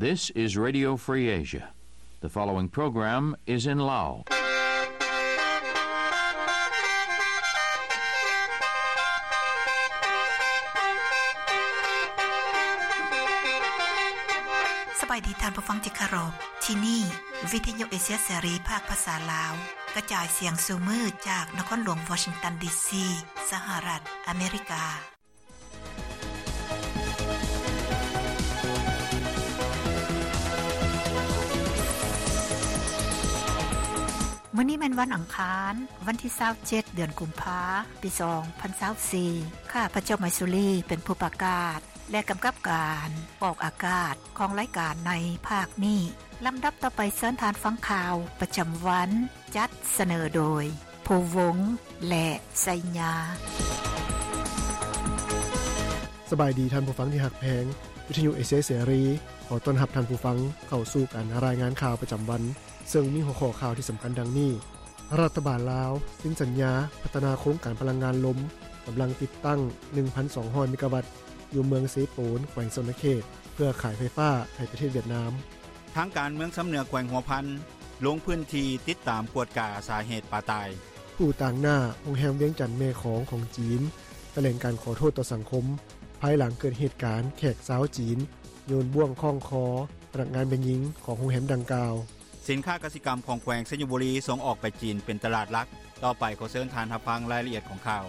This is Radio Free Asia. The following program is in Lao. ສະບາຍດີທ່ານຜູ້ຟັງທີ່ເຄົາລົບ. ທີ່ນີ້ ວິທະຍຸເອເຊຍເສລີ ພາກພາສາລາວ ກະຈາຍສຽງສູ່ມື້ຈາກນະຄອນຫຼວງວໍຊິງຕັນ ດີຊີ ສະຫະລັດອາເມລິກາ. ມື້ນີ້ແມ່ນວັນອັງຄານ, ວັນທີຊາວເຈັດ ເດືອນກຸມພາ ປີສອງພັນຊາວສີ່. ຂ້າພະເຈົ້າ ໄມຊູລີ ເປັນຜູ້ປະກາດ ແລະ ກຳກັບການອອກອາກາດຂອງລາຍການໃນພາກນີ້. ລຳດັບຕໍ່ໄປ ເຊີນທ່ານຟັງຂ່າວປະຈຳວັນ ຈັດສະເໜີໂດຍ ພູວົງ ແລະ ໄຊຍາ. ສະບາຍດີທ່ານຜູ້ຟັງທີ່ຮັກແພງ, ວິທະຍຸເອເຊຍເສລີ ຂໍຕ້ອນຮັບທ່ານຜູ້ຟັງເຂົ້າສູ່ການລາຍງານຂ່າວປະຈຳວັນ, ເຊິ່ງມີຫົວຂໍ້ຂ່າວທີ່ສຳຄັນດັ່ງນີ້: ລັດຖະບານລາວເຊັນສັນຍາພັດທະນາໂຄງການພະລັງງານລົມ ກຳລັງຕິດຕັ້ງໜຶ່ງພັນສອງຮ້ອຍເມກາວັດ ຢູ່ເມືອງເຊໂປນ ແຂວງສະຫວັນນະເຂດ ເພື່ອຂາຍໄຟຟ້າໃຫ້ປະເທດຫວຽດນາມ. ທາງການເມືອງຊຳເໜືອ ແຂວງຫົວພັນ ລົງພື້ນທີ່ຕິດຕາມກວດກາສາເຫດປາຕາຍ. ຜູ້ຕາງໜ້າໂຮງແຮມວຽງຈັນແມ່ຂອງຂອງຈີນ ຖະແຫຼງການຂໍໂທດຕໍ່ສັງຄົມ ພາຍຫຼັງເກີດເຫດການແຂກຊາວຈີນໂຍນບ່ວງຄ້ອງຄໍພະນັກງານແມ່ຍິງຂອງໂຮງແຮມດັ່ງກ່າວ. ສິນຄ້າກະສິກຳຂອງແຂວງໄຊຍະບູລີສົ່ງອອກໄປຈີນເປັນຕະຫຼາດຫຼັກ. ຕໍ່ໄປຂໍເຊີນທ່ານຮັບຟັງລາຍລະອຽດຂອງຂ່າວ.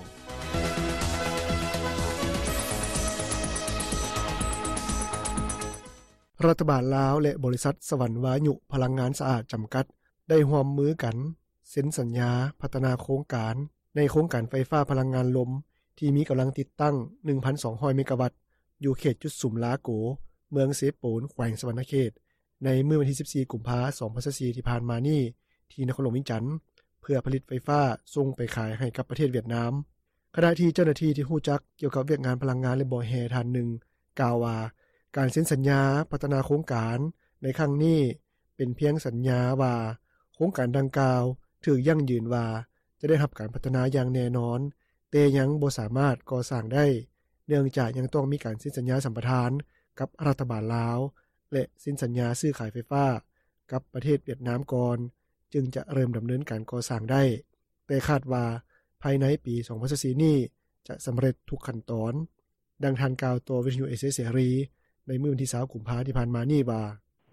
ລັດຖະບານລາວ ແລະ ບໍລິສັດສະຫວັນວາຍຸພະລັງງານສະອາດຈຳກັດ ໄດ້ຮ່ວມມືກັນເຊັນສັນຍາພັດທະນາໂຄງການ ໃນໂຄງການໄຟຟ້າພະລັງງານລົມ ທີ່ມີກຳລັງຕິດຕັ້ງໜຶ່ງພັນສອງຮ້ອຍເມກາວັດ ຢູ່ເຂດຈຸດສຸມລາໂກ ເມືອງເຊໂປນ ແຂວງສະຫວັນນະເຂດ ໃນມື້ວັນທີສິບສີ່ ກຸມພາ ສອງພັນຊາວສີ່ ທີ່ຜ່ານມານີ້ ທີ່ນະຄອນຫຼວງວຽງຈັນ ເພື່ອຜະລິດໄຟຟ້າສົ່ງໄປຂາຍໃຫ້ກັບປະເທດຫວຽດນາມ. ຂະນະທີ່ເຈົ້າໜ້າທີ່ທີ່ຮູ້ຈັກກ່ຽວກັບວຽກງານພະລັງງານ ແລະ ບໍ່ແຮ່ທ່ານໜຶ່ງ ກ່າວວ່າ ການເຊັນສັນຍາພັດທະນາໂຄງການໃນຄັ້ງນີ້ ເປັນພຽງສັນຍາວ່າ ໂຄງການດັ່ງກ່າວຖືກຢັ້ງຢືນວ່າ ຈະໄດ້ຮັບການພັດທະນາຢ່າງແນ່ນອນ, ແຕ່ຍັງບໍ່ສາມາດກໍ່ສ້າງໄດ້ ເນື່ອງຈາກຍັງຕ້ອງມີການເຊັນສັນຍາສຳປະທານກັບລັດຖະບານລາວ ແລະ ເຊັນສັນຍາຊື້ຂາຍໄຟຟ້າກັບປະເທດຫວຽດນາມກ່ອນ ຈຶ່ງຈະເລີ່ມດຳເນີນການກໍ່ສ້າງໄດ້, ແຕ່ຄາດວ່າພາຍໃນປີສອງພັນຊາວສີ່ນີ້ ຈະສຳເລັດທຸກຂັ້ນຕອນ. ດັ່ງທ່ານກ່າວຕໍ່ວິທະຍຸເອເຊຍເສລີ ໃນມື້ວັນທີຊາວ ກຸມພາ ທີ່ຜ່ານມານີ້ວ່າ: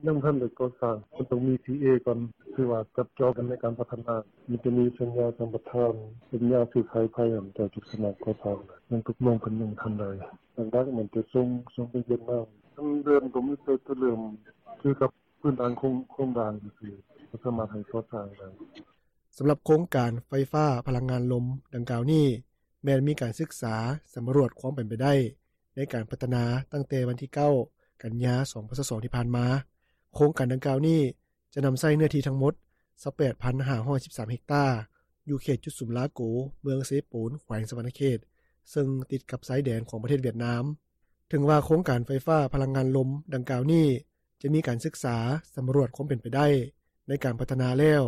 ຍັງບໍ່ທັນໄດ້ກໍ່ສ້າງ, ມັນຕ້ອງມີ ທີ ເອ ກ່ອນ, ຄືວ່າຈັບຈອງກັນໃນການພັດທະນາ, ມີແຕ່ມີສັນຍາສຳປະທານ, ສັນຍາຊື້ຂາຍໄຟຫັ້ນ ເຈົ້າຈະສາມາດກໍ່ສ້າງໄດ້, ຍັງຕົກລົງກັນຍັງບໍ່ທັນໄດ້. ຫຼັກໆ ມັນຈະສົ່ງ, ສົ່ງໄປຫວຽດນາມ, ທາງເດີມກໍມີແຕ່ຈະເລີ່ມຄືກັບພື້ນຖານໂຄງ, ໂຄງລ່າງຊື່ໆ, ບໍ່ສາມາດໃຫ້ກໍ່ສ້າງໄດ້. ສຳລັບໂຄງການໄຟຟ້າພະລັງງານລົມດັ່ງກ່າວນີ້ ແມ່ນມີການສຶກສາສຳຫຼວດຄວາມເປັນໄປໄດ້ໃນການພັດທະນາຕັ້ງແຕ່ວັນທີເກົ້າ ກັນຍາ ສອງພັນຊາວສອງ ທີ່ຜ່ານມາ. ໂຄງການດັ່ງກ່າວນີ້ຈະນຳໃຊ້ເນື້ອທີ່ທັງໝົດ ຊາວແປດພັນຫ້າຮ້ອຍສິບສາມເຮັກຕາ ຢູ່ເຂດຈຸດສຸມລາໂກ ເມືອງເຊໂປນ ແຂວງສະຫວັນນະເຂດ ເຊິ່ງຕິດກັບຊາຍແດນຂອງປະເທດຫວຽດນາມ. ເຖິງວ່າໂຄງການໄຟຟ້າພະລັງງານລົມດັ່ງກ່າວນີ້ ຈະມີການສຶກສາສຳຫຼວດຄວາມເປັນໄປໄດ້ໃນການພັດທະນາແລ້ວ,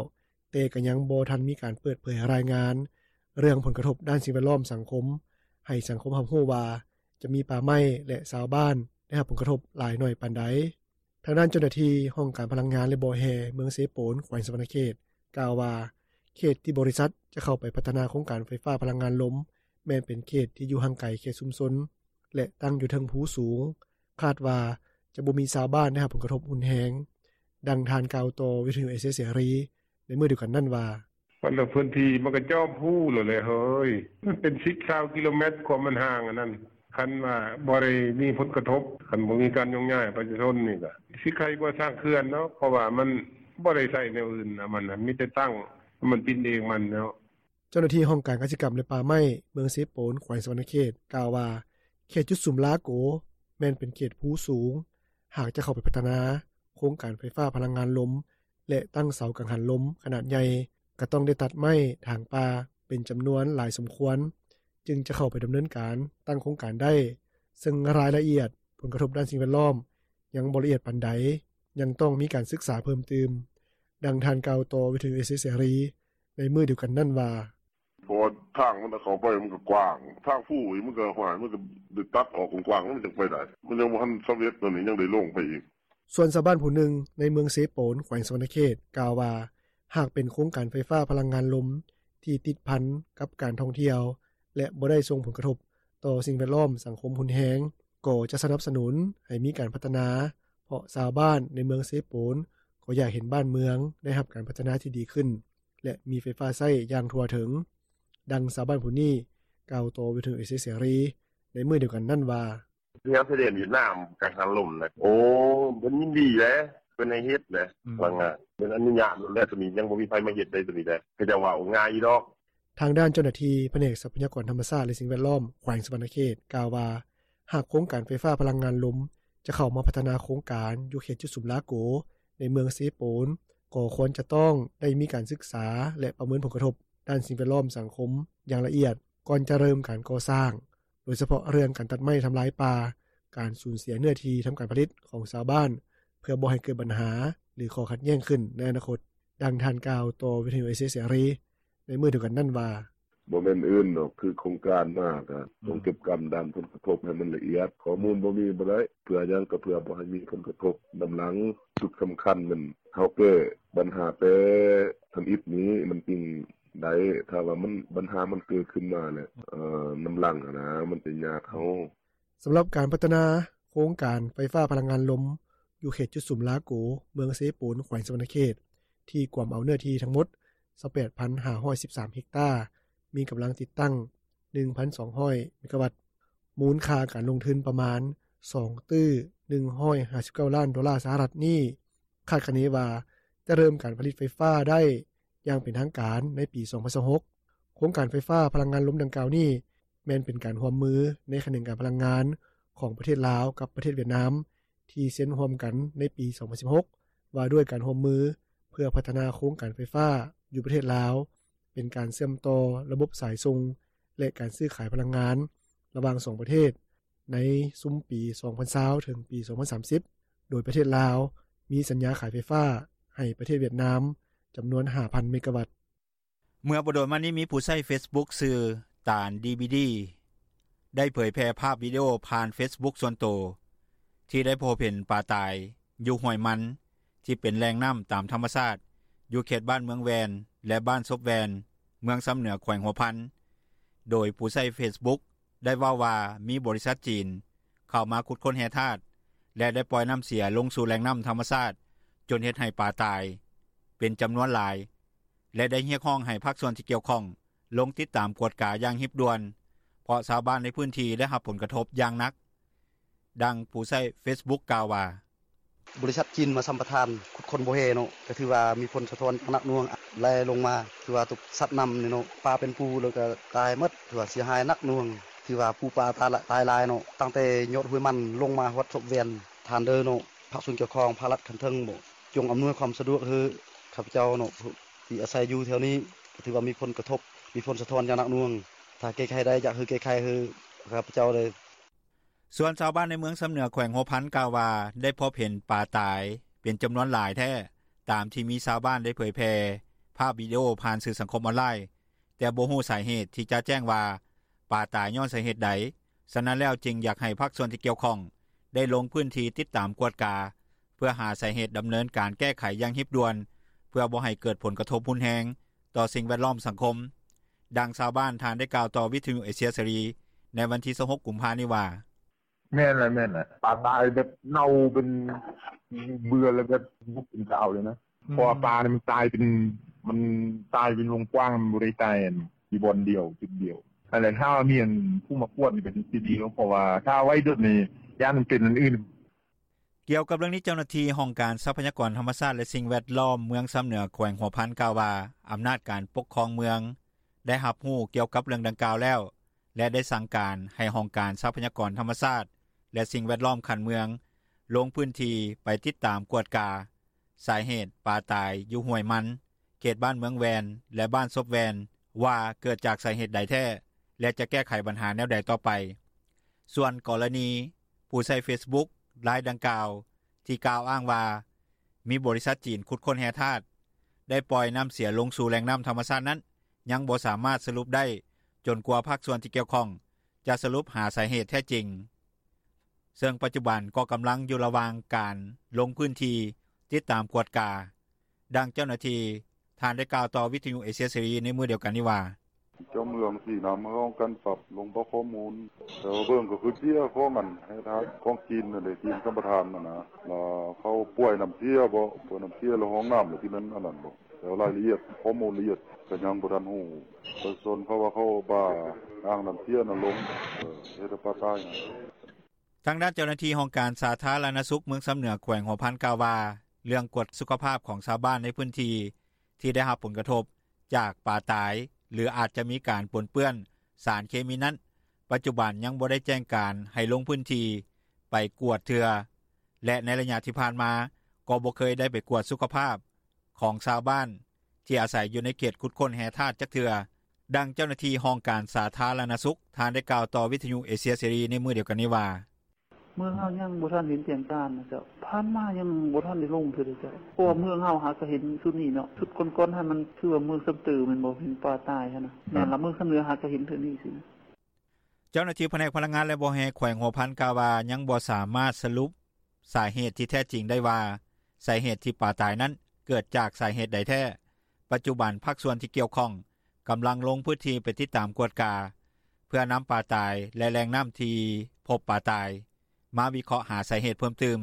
ແຕ່ກໍຍັງບໍ່ທັນມີການເປີດເຜີຍລາຍງານເລື່ອງຜົນກະທົບດ້ານສິ່ງແວດລ້ອມສັງຄົມ ໃຫ້ສັງຄົມຮັບຮູ້ວ່າ ຈະມີປ່າໄມ້ ແລະ ຊາວບ້ານໄດ້ຮັບຜົນກະທົບຫຼາຍໜ້ອຍປານໃດ. ທາງດ້ານເຈົ້າໜ້າທີ່ຫ້ອງການພະລັງງານ ແລະ ບໍ່ແຮ່ ເມືອງເຊໂປນ ແຂວງສະຫວັນນະເຂດ ກ່າວວ່າ ເຂດທີ່ບໍລິສັດຈະເຂົ້າໄປພັດທະນາໂຄງການໄຟຟ້າພະລັງງານລົມ ແມ່ນເປັນເຂດທີ່ຢູ່ຫ່າງໄກເຂດຊຸມຊົນ ແລະ ຕັ້ງຢູ່ເທິງພູສູງ, ຄາດວ່າຈະບໍ່ມີຊາວບ້ານໄດ້ຮັບຜົນກະທົບຮຸນແຮງ. ດັ່ງທ່ານກ່າວຕໍ່ວິທະຍຸເອເຊຍເສລີໃນມື້ດຽວກັນນັ້ນວ່າ: ມັນລະພື້ນທີ່ມັນກໍຈອມພູແລ້ວແຫຼະເຮີ້ຍ, ມັນເປັນສິບ ຊາວກິໂລແມັດ ຄວາມມັນຫ່າງອັນນັ້ນ. ຄັນວ່າບໍ່ໄດ້ມີຜົນກະທົບ, ຄັນບໍ່ມີການໂຍກຍ້າຍປະຊາຊົນນີ້ ກໍຊິໄຄກວ່າສ້າງເຂື່ອນເນາະ, ເພາະວ່າມັນບໍ່ໄດ້ໃຊ້ແນວອື່ນນະ, ມັນມີແຕ່ຕັ້ງໃຫ້ມັນບິນເອງມັນເນາະ. ເຈົ້າໜ້າທີ່ຫ້ອງການກະສິກຳ ແລະ ປ່າໄມ້ ເມືອງເຊໂປນ ແຂວງສະຫວັນນະເຂດ ກ່າວວ່າ ເຂດຈຸດສຸມລາໂກ ແມ່ນເປັນເຂດພູສູງ, ຫາກຈະເຂົ້າໄປພັດທະນາໂຄງການໄຟຟ້າພະລັງງານລົມ ແລະ ຕັ້ງເສົາກັງຫັນລົມຂະໜາດໃຫຍ່ ກໍຕ້ອງໄດ້ຕັດໄມ້ຖາງປ່າເປັນຈຳນວນຫຼາຍສົມຄວນ ຈຶ່ງຈະເຂົ້າໄປດຳເນີນການຕັ້ງໂຄງການໄດ້, ເຊິ່ງລາຍລະອຽດຜົນກະທົບດ້ານສິ່ງແວດລ້ອມຍັງບໍ່ລະອຽດປານໃດ, ຍັງຕ້ອງມີການສຶກສາເພີ່ມຕື່ມ. ດັ່ງທ່ານກ່າວຕໍ່ວິທະຍຸເອເຊຍເສລີໃນມື້ດຽວກັນນັ້ນວ່າ: ເພາະວ່າທາງມັນເຂົ້າໄປມັນກໍກວ້າງ, ທາງພູອີກມັນກໍ ຫ້ວຍ ມັນກໍໄດ້ຕັດອອກກວ້າງໆ ມັນຈັ່ງໄປໄດ້, ມັນຍັງບໍ່ທັນສຳເລັດ, ໂຕນີ້ຍັງໄດ້ລົງໄປອີກ. ສ່ວນຊາວບ້ານຜູ້ໜຶ່ງ ໃນເມືອງເຊໂປນ ແຂວງສະຫວັນນະເຂດ ກ່າວວ່າ ຫາກເປັນໂຄງການໄຟຟ້າພະລັງງານລົມ ທີ່ຕິດພັນກັບການທ່ອງທ່ຽວ ແລະ ບໍ່ໄດ້ສົ່ງຜົນກະທົບ ຕໍ່ສິ່ງແວດລ້ອມ-ສັງຄົມຮຸນແຮງ ກໍຈະສະໜັບສະໜູນ ໃຫ້ມີການພັດທະນາ ເພາະຊາວບ້ານ ໃນເມືອງເຊໂປນ ກໍຢາກເຫັນບ້ານເມືອງ ໄດ້ຮັບການພັດທະນາທີ່ດີຂຶ້ນ ແລະ ມີໄຟຟ້າໃຊ້ຢ່າງທົ່ວເຖິງ. ດັ່ງຊາວບ້ານຜູ້ນີ້ ກ່າວຕໍ່ວິທຍຸເອເຊຍເສລີ ໃນມື້ດຽວກັນນັ້ນວ່າ: “ແຖວຊາຍແດນຫວຽດນາມ ກັງຫັນລົມນະ ໂອ້ ເພິ່ນຍິນດີເດ້ ເພິ່ນໃຫ້ເຮັດເດ້ ພະລັງງານ ເພິ່ນອະນຸຍາດໂລດແຫຼະ ໂຕນີ້ຍັງບໍ່ມີໃຜມາເຮັດເດ້ ໂຕນີ້ເດ້ ເຂົາເຈົ້າເວົ້າງ່າຍຢູ່ດອກ.” ທາງດ້ານເຈົ້າໜ້າທີ່ ພະແນກຊັບພະຍາກອນທຳມະຊາດ ແລະ ສິ່ງແວດລ້ອມ ແຂວງສະຫວັນນະເຂດ ກ່າວວ່າ ຫາກໂຄງການໄຟຟ້າພະລັງງານລົມ ຈະເຂົ້າມາພັດທະນາໂຄງການ ຢູ່ເຂດຈຸດສຸມລາໂກ ໃນເມືອງເຊໂປນ ກໍຄວນຈະຕ້ອງໄດ້ມີການສຶກສາ ແລະ ປະເມີນຜົນກະທົບ ດ້ານສິ່ງແວດລ້ອມ-ສັງຄົມ ຢ່າງລະອຽດ ກ່ອນຈະເລີ່ມການກໍ່ສ້າງ ໂດຍສະເພາະເລື່ອງການຕັດໄມ້ທຳລາຍປ່າ, ການສູນເສຍເນື້ອທີ່ທຳການຜະລິດ ຂອງຊາວບ້ານ ເພື່ອບໍ່ໃຫ້ເກີດບັນຫາ ຫຼື ຂໍ້ຂັດແຍ່ງຂຶ້ນ ໃນອະນາຄົດ. ດັ່ງທ່ານກ່າວຕໍ່ວິທຍຸເອເຊຍເສລີ ໃນມື້ດຽວກັນນັ້ນວ່າ: “ບໍ່ແມ່ນອື່ນດອກ ຄືໂຄງການມາ ກະຕ້ອງເກັບກຳດ້ານຜົນກະທົບ ໃຫ້ມັນລະອຽດ ຂໍ້ມູນບໍ່ມີບໍ່ໄດ້ ເພື່ອຫຍັງ ກະເພື່ອບໍ່ໃຫ້ມີຜົນກະທົບນຳຫຼັງ ຈຸດສຳຄັນແມ່ນ ເຮົາແກ້ບັນຫາແຕ່ທຳອິດນີ້ ມັນຈຶ່ງໄດ້ ຖ້າວ່າບັນຫາມັນເກີດຂຶ້ນມາແລ້ວ ນຳຫຼັງຫັ້ນນ່າ ມັນຈະຍາກເຮົາ.” ສຳລັບການພັດທະນາໂຄງການໄຟຟ້າພະລັງງານລົມ ຢູ່ເຂດຈຸດສຸມລາໂກ ເມືອງເຊໂປນ ແຂວງສະຫວັນນະເຂດ ທີ່ກວມເອົາເນື້ອທີ່ທັງໝົດ ຊາວແປດພັນຫ້າຮ້ອຍສິບສາມເຮັກຕາ ມີກຳລັງຕິດຕັ້ງ ໜຶ່ງພັນສອງຮ້ອຍເມກາວັດ ມູນຄ່າການລົງທຶນປະມານ ສອງຕື້ໜຶ່ງຮ້ອຍຫ້າສິບເກົ້າລ້ານໂດລາສະຫະລັດນີ້ ຄາດຄະເນວ່າ ຈະເລີ່ມການຜະລິດໄຟຟ້າໄດ້ຢ່າງເປັນທາງການໃນປີສອງພັນຊາວຫົກ. ໂຄງການໄຟຟ້າພະລັງງານລົມດັ່ງກ່າວນີ້ ແມ່ນເປັນການຮ່ວມມືໃນຂະແໜງການພະລັງງານຂອງປະເທດລາວກັບປະເທດຫວຽດນາມ ທີ່ເຊັນຮ່ວມກັນໃນປີສອງພັນສິບຫົກ ວ່າດ້ວຍການຮ່ວມມືເພື່ອພັດທະນາໂຄງການໄຟຟ້າຢູ່ປະເທດລາວ ເປັນການເຊື່ອມຕໍ່ລະບົບສາຍສົ່ງ ແລະ ການຊື້ຂາຍພະລັງງານ ລະຫວ່າງສອງປະເທດ ໃນຊຸມປີສອງພັນຊາວ ເຖິງປີສອງພັນສາມສິບ ໂດຍປະເທດລາວ ມີສັນຍາຂາຍໄຟຟ້າໃຫ້ປະເທດຫວຽດນາມ ຈຳນວນຫ້າພັນເມກາວັດ. ເມື່ອບໍ່ດົນມານີ້ ມີຜູ້ໃຊ້ເຟສບຸກ ຊື່ ຕານ ດີບີດີ ໄດ້ເຜີຍແຜ່ພາບວິດີໂອຜ່ານເຟສບຸກສ່ວນໂຕ ທີ່ໄດ້ພົບເຫັນປາຕາຍຢູ່ຫ້ວຍມັນ ທີ່ເປັນແຫຼ່ງນ້ຳຕາມທຳມະຊາດ ຢູ່ເຂດບ້ານເມືອງແວ່ນ ແລະ ບ້ານສົບແວ່ນ ເມືອງຊຳເໜືອ ແຂວງຫົວພັນ. ໂດຍຜູ້ໃຊ້ເຟສບຸກ ໄດ້ເວົ້າວ່າ ມີບໍລິສັດຈີນເຂົ້າມາຂຸດຄົ້ນແຮ່ທາດ ແລະ ໄດ້ປ່ອຍນ້ຳເສຍລົງສູ່ແຫຼ່ງນ້ຳທຳມະຊາດ ຈົນເຮັດໃຫ້ປາຕາຍເປັນຈຳນວນຫຼາຍ ແລະ ໄດ້ຮຽກຮ້ອງໃຫ້ພາກສ່ວນທີ່ກ່ຽວຂ້ອງ ລົງຕິດຕາມກວດກາຢ່າງຮີບດ່ວນ ເພາະຊາວບ້ານໃນພື້ນທີ່ໄດ້ຮັບຜົນກະທົບຢ່າງໜັກ. ດັ່ງຜູ້ໃຊ້ເຟສບຸກກ່າວວ່າ: “ບໍລິສັດຈີນມາສຳປະທານຂຸດຄົ້ນບໍ່ແຮ່ເນາະ ກະຖືວ່າມີຜົນສະທ້ອນຢ່າງໜັກໜ່ວງ ໄຫຼລົງມາ ຖືວ່າຕົກສັດນ້ຳນີ້ເນາະ ປາເປັນປູ ແລ້ວກະຕາຍໝົດ ຖືວ່າເສຍຫາຍໜັກໜ່ວງ ຖືວ່າປູປາຕາຍຫຼາຍເນາະ ຕັ້ງແຕ່ຍອດຫ້ວຍມັນລົງມາຮອດສົບແວ່ນ ທ່ານເດີເນາະ ພາກສ່ວນກ່ຽວຂ້ອງ ພາກລັດຂັ້ນເທິງເນາະ ຈົ່ງອຳນວຍຄວາມສະດວກໃຫ້ຂ້າພະເຈົ້າເນາະ ທີ່ອາໄສຢູ່ແຖວນີ້ ກະຖືວ່າມີຜົນກະທົບ ມີຜົນສະທ້ອນຢ່າງໜັກໜ່ວງ ຖ້າແກ້ໄຂໄດ້ ຢາກໃຫ້ແກ້ໄຂໃຫ້ຂ້າພະເຈົ້າເລີຍ.” ສ່ວນຊາວບ້ານໃນເມືອງຊຳເໜືອ ແຂວງຫົວພັນ ກ່າວວ່າ ໄດ້ພົບເຫັນປາຕາຍເປັນຈຳນວນຫຼາຍແທ້ ຕາມທີ່ມີຊາວບ້ານໄດ້ເຜີຍແຜ່ພາບວິດີໂອຜ່ານສື່ສັງຄົມອອນລາຍ ແຕ່ບໍ່ຮູ້ສາເຫດທີ່ຈະແຈ້ງວ່າ ປາຕາຍຍ້ອນສາເຫດໃດ. ສະນັ້ນແລ້ວ ຈຶ່ງຢາກໃຫ້ພາກສ່ວນທີ່ກ່ຽວຂ້ອງ ໄດ້ລົງພື້ນທີ່ຕິດຕາມກວດກາ ເພື່ອຫາສາເຫດດຳເນີນການແກ້ໄຂຢ່າງຮີບດ່ວນ ເພື່ອບໍ່ໃຫ້ເກີດຜົນກະທົບຮຸນແຮງຕໍ່ສິ່ງແວດລ້ອມ-ສັງຄົມ. ດັ່ງຊາວບ້ານທ່ານໄດ້ກ່າວຕໍ່ວິທຍຸເອເຊຍເສລີ ໃນວັນທີຊາວຫົກ ກຸມພານີ້ວ່າ: “ແມ່ນແຫຼະ ແມ່ນແຫຼະ ປາຕາຍແບບເນົ່າເປັນເບື່ອ ແລ້ວແບບບໍ່ເປັນຕາເອົາເລີຍນະ ເພາະວ່າປາມັນຕາຍເປັນ ມັນຕາຍເປັນວົງກວ້າງ ມັນບໍ່ໄດ້ຕາຍຢູ່ບ່ອນດຽວ ຈຸດດຽວ ຫັ້ນແຫຼະ ຖ້າວ່າມີອັນຜູ້ມາກວດນີ້ກະຊິດີເນາະ ເພາະວ່າຖ້າໄວ້ດົນນີ້ ຢ້ານມັນເປັນອັນອື່ນ.” ກ່ຽວກັບເລື່ອງນີ້ ເຈົ້າໜ້າທີ່ຫ້ອງການຊັບພະຍາກອນທຳມະຊາດ ແລະ ສິ່ງແວດລ້ອມ ເມືອງຊຳເໜືອ ແຂວງຫົວພັນ ກ່າວວ່າ ອຳນາດການປົກຄອງເມືອງ ໄດ້ຮັບຮູ້ກ່ຽວກັບເລື່ອງດັ່ງກ່າວແລ້ວ ແລະ ໄດ້ສັ່ງການໃຫ້ຫ້ອງການຊັບພະຍາກອນທຳມະຊາດ ແລະ ສິ່ງແວດລ້ອມຂັ້ນເມືອງ ລົງພື້ນທີ່ໄປຕິດຕາມກວດກາສາເຫດປາຕາຍຢູ່ຫ້ວຍມັນ ເຂດບ້ານເມືອງແວ່ນ ແລະ ບ້ານສົບແວ່ນ ວ່າເກີດຈາກສາເຫດໃດແທ້ ແລະ ຈະແກ້ໄຂບັນຫາແນວໃດຕໍ່ໄປ. ສ່ວນກໍລະນີຜູ້ໃຊ້ເຟສບຸກລາຍດັ່ງກ່າວ ທີ່ກ່າວອ້າງວ່າ ມີບໍລິສັດຈີນຂຸດຄົ້ນແຮ່ທາດ ໄດ້ປ່ອຍນ້ຳເສຍລົງສູ່ແຫຼ່ງນ້ຳທຳມະຊາດນັ້ນ ຍັງບໍ່ສາມາດສະຫຼຸບໄດ້ ຈົນກວ່າພາກສ່ວນທີ່ກ່ຽວຂ້ອງ ຈະສະຫຼຸບຫາສາເຫດແທ້ຈິງ. ເຊິ່ງປັດຈຸບັນ ກໍກຳລັງຢູ່ລະຫວ່າງ ການລົງພື້ນທີ່ ຕິດຕາມກວດກາ. ດັ່ງເຈົ້າໜ້າທີ່ ທ່ານໄດ້ກ່າວຕໍ່ ວິທຍຸເອເຊຍເສລີ ໃນມື້ດຽວກັນນີ້ວ່າ: "ເຈົ້າເມືອງສີນຳ ເຮົາຕ້ອງການປັບລົງ ເພາະຂໍ້ມູນ ແຕ່ວ່າເບິ່ງ ກໍຄືເສຍຂອງອັນ ແຮ່ທາດຂອງຈີນ ນັ້ນເດ ຈີນສຳປະທານຫັ້ນນະ ແລ້ວເຂົາປ່ວຍນ້ຳເສຍບໍ ປ່ວຍນ້ຳເສຍ ແລ້ວຫ້ອງນ້ຳ ແລ້ວທີ່ແມ່ນອັນນັ້ນບໍ ແຕ່ວ່າລາຍລະອຽດ ຂໍ້ມູນລະອຽດ ກໍຍັງບໍ່ທັນຮູ້ ປະຊາຊົນເຂົາວ່າ ເຂົາບ້າ ອ່າງນ້ຳເສຍນັ້ນລົງ ເຮັດໃຫ້ປາຕາຍ." ທາງດ້ານເຈົ້າໜ້າທີ່ ຫ້ອງການສາທາລະນະສຸກ ເມືອງຊຳເໜືອ ແຂວງຫົວພັນ ກ່າວວ່າ ເລື່ອງກວດສຸຂະພາບ ຂອງຊາວບ້ານ ໃນພື້ນທີ່ ທີ່ໄດ້ຮັບຜົນກະທົບ ຈາກປາຕາຍ ຫຼື ອາດຈະມີການປົນເປື້ອນ ສານເຄມີນັ້ນ ປັດຈຸບັນ ຍັງບໍ່ໄດ້ແຈ້ງການ ໃຫ້ລົງພື້ນທີ່ ໄປກວດເທື່ອ ແລະ ໃນໄລຍະທີ່ຜ່ານມາ ກໍບໍ່ເຄີຍໄດ້ໄປກວດສຸຂະພາບ ຂອງຊາວບ້ານ ທີ່ອາໄສຢູ່ໃນເຂດ ຂຸດຄົ້ນແຮ່ທາດ ຈັກເທື່ອ. ດັ່ງເຈົ້າໜ້າທີ່ ຫ້ອງການສາທາລະນະສຸກ ທ່ານໄດ້ກ່າວຕໍ່ ວິທຍຸເອເຊຍເສລີ ໃນມື້ດຽວກັນນີ້ວ່າ: "ເມືອງເຮົາຍັງບໍ່ທັນເຫັນແຈ້ງການນະເຈົ້າ ຜ່ານມາຍັງບໍ່ທັນໄດ້ລົງເທື່ອເດເຈົ້າ ເພາະວ່າເມືອງເຮົາຫາກະເຫັນຊຸດນີ້ເນາະ ຊຸດກ່ອນໆຫັ້ນ ມັນຄືວ່າເມືອງຊຳເຕີ ແມ່ນບໍ່ ເຫັນປາຕາຍຫັ້ນນະ ແມ່ນລະ ເມືອງຊຳເໜືອ ຫາກະເຫັນເທື່ອນີ້ຊີ້ນະ." ເຈົ້າໜ້າທີ່ພະແນກພະລັງງານ ແລະ ບໍ່ແຮ່ ແຂວງຫົວພັນ ກ່າວວ່າ ຍັງບໍ່ສາມາດສະຫຼຸບ ສາເຫດທີ່ແທ້ຈິງໄດ້ວ່າ ສາເຫດທີ່ປາຕາຍນັ້ນ ເກີດຈາກສາເຫດໃດແທ້. ປັດຈຸບັນ ພາກສ່ວນທີ່ກ່ຽວຂ້ອງ ກຳລັງລົງພື້ນທີ່ ໄປຕິດຕາມກວດກາ ເພື່ອນຳປາຕາຍ ແລະ ແຫຼ່ງນ້ຳທີ່ພົບປາຕາຍ ມາວິເຄາະຫາສາເຫດເພີ່ມຕື່ມ.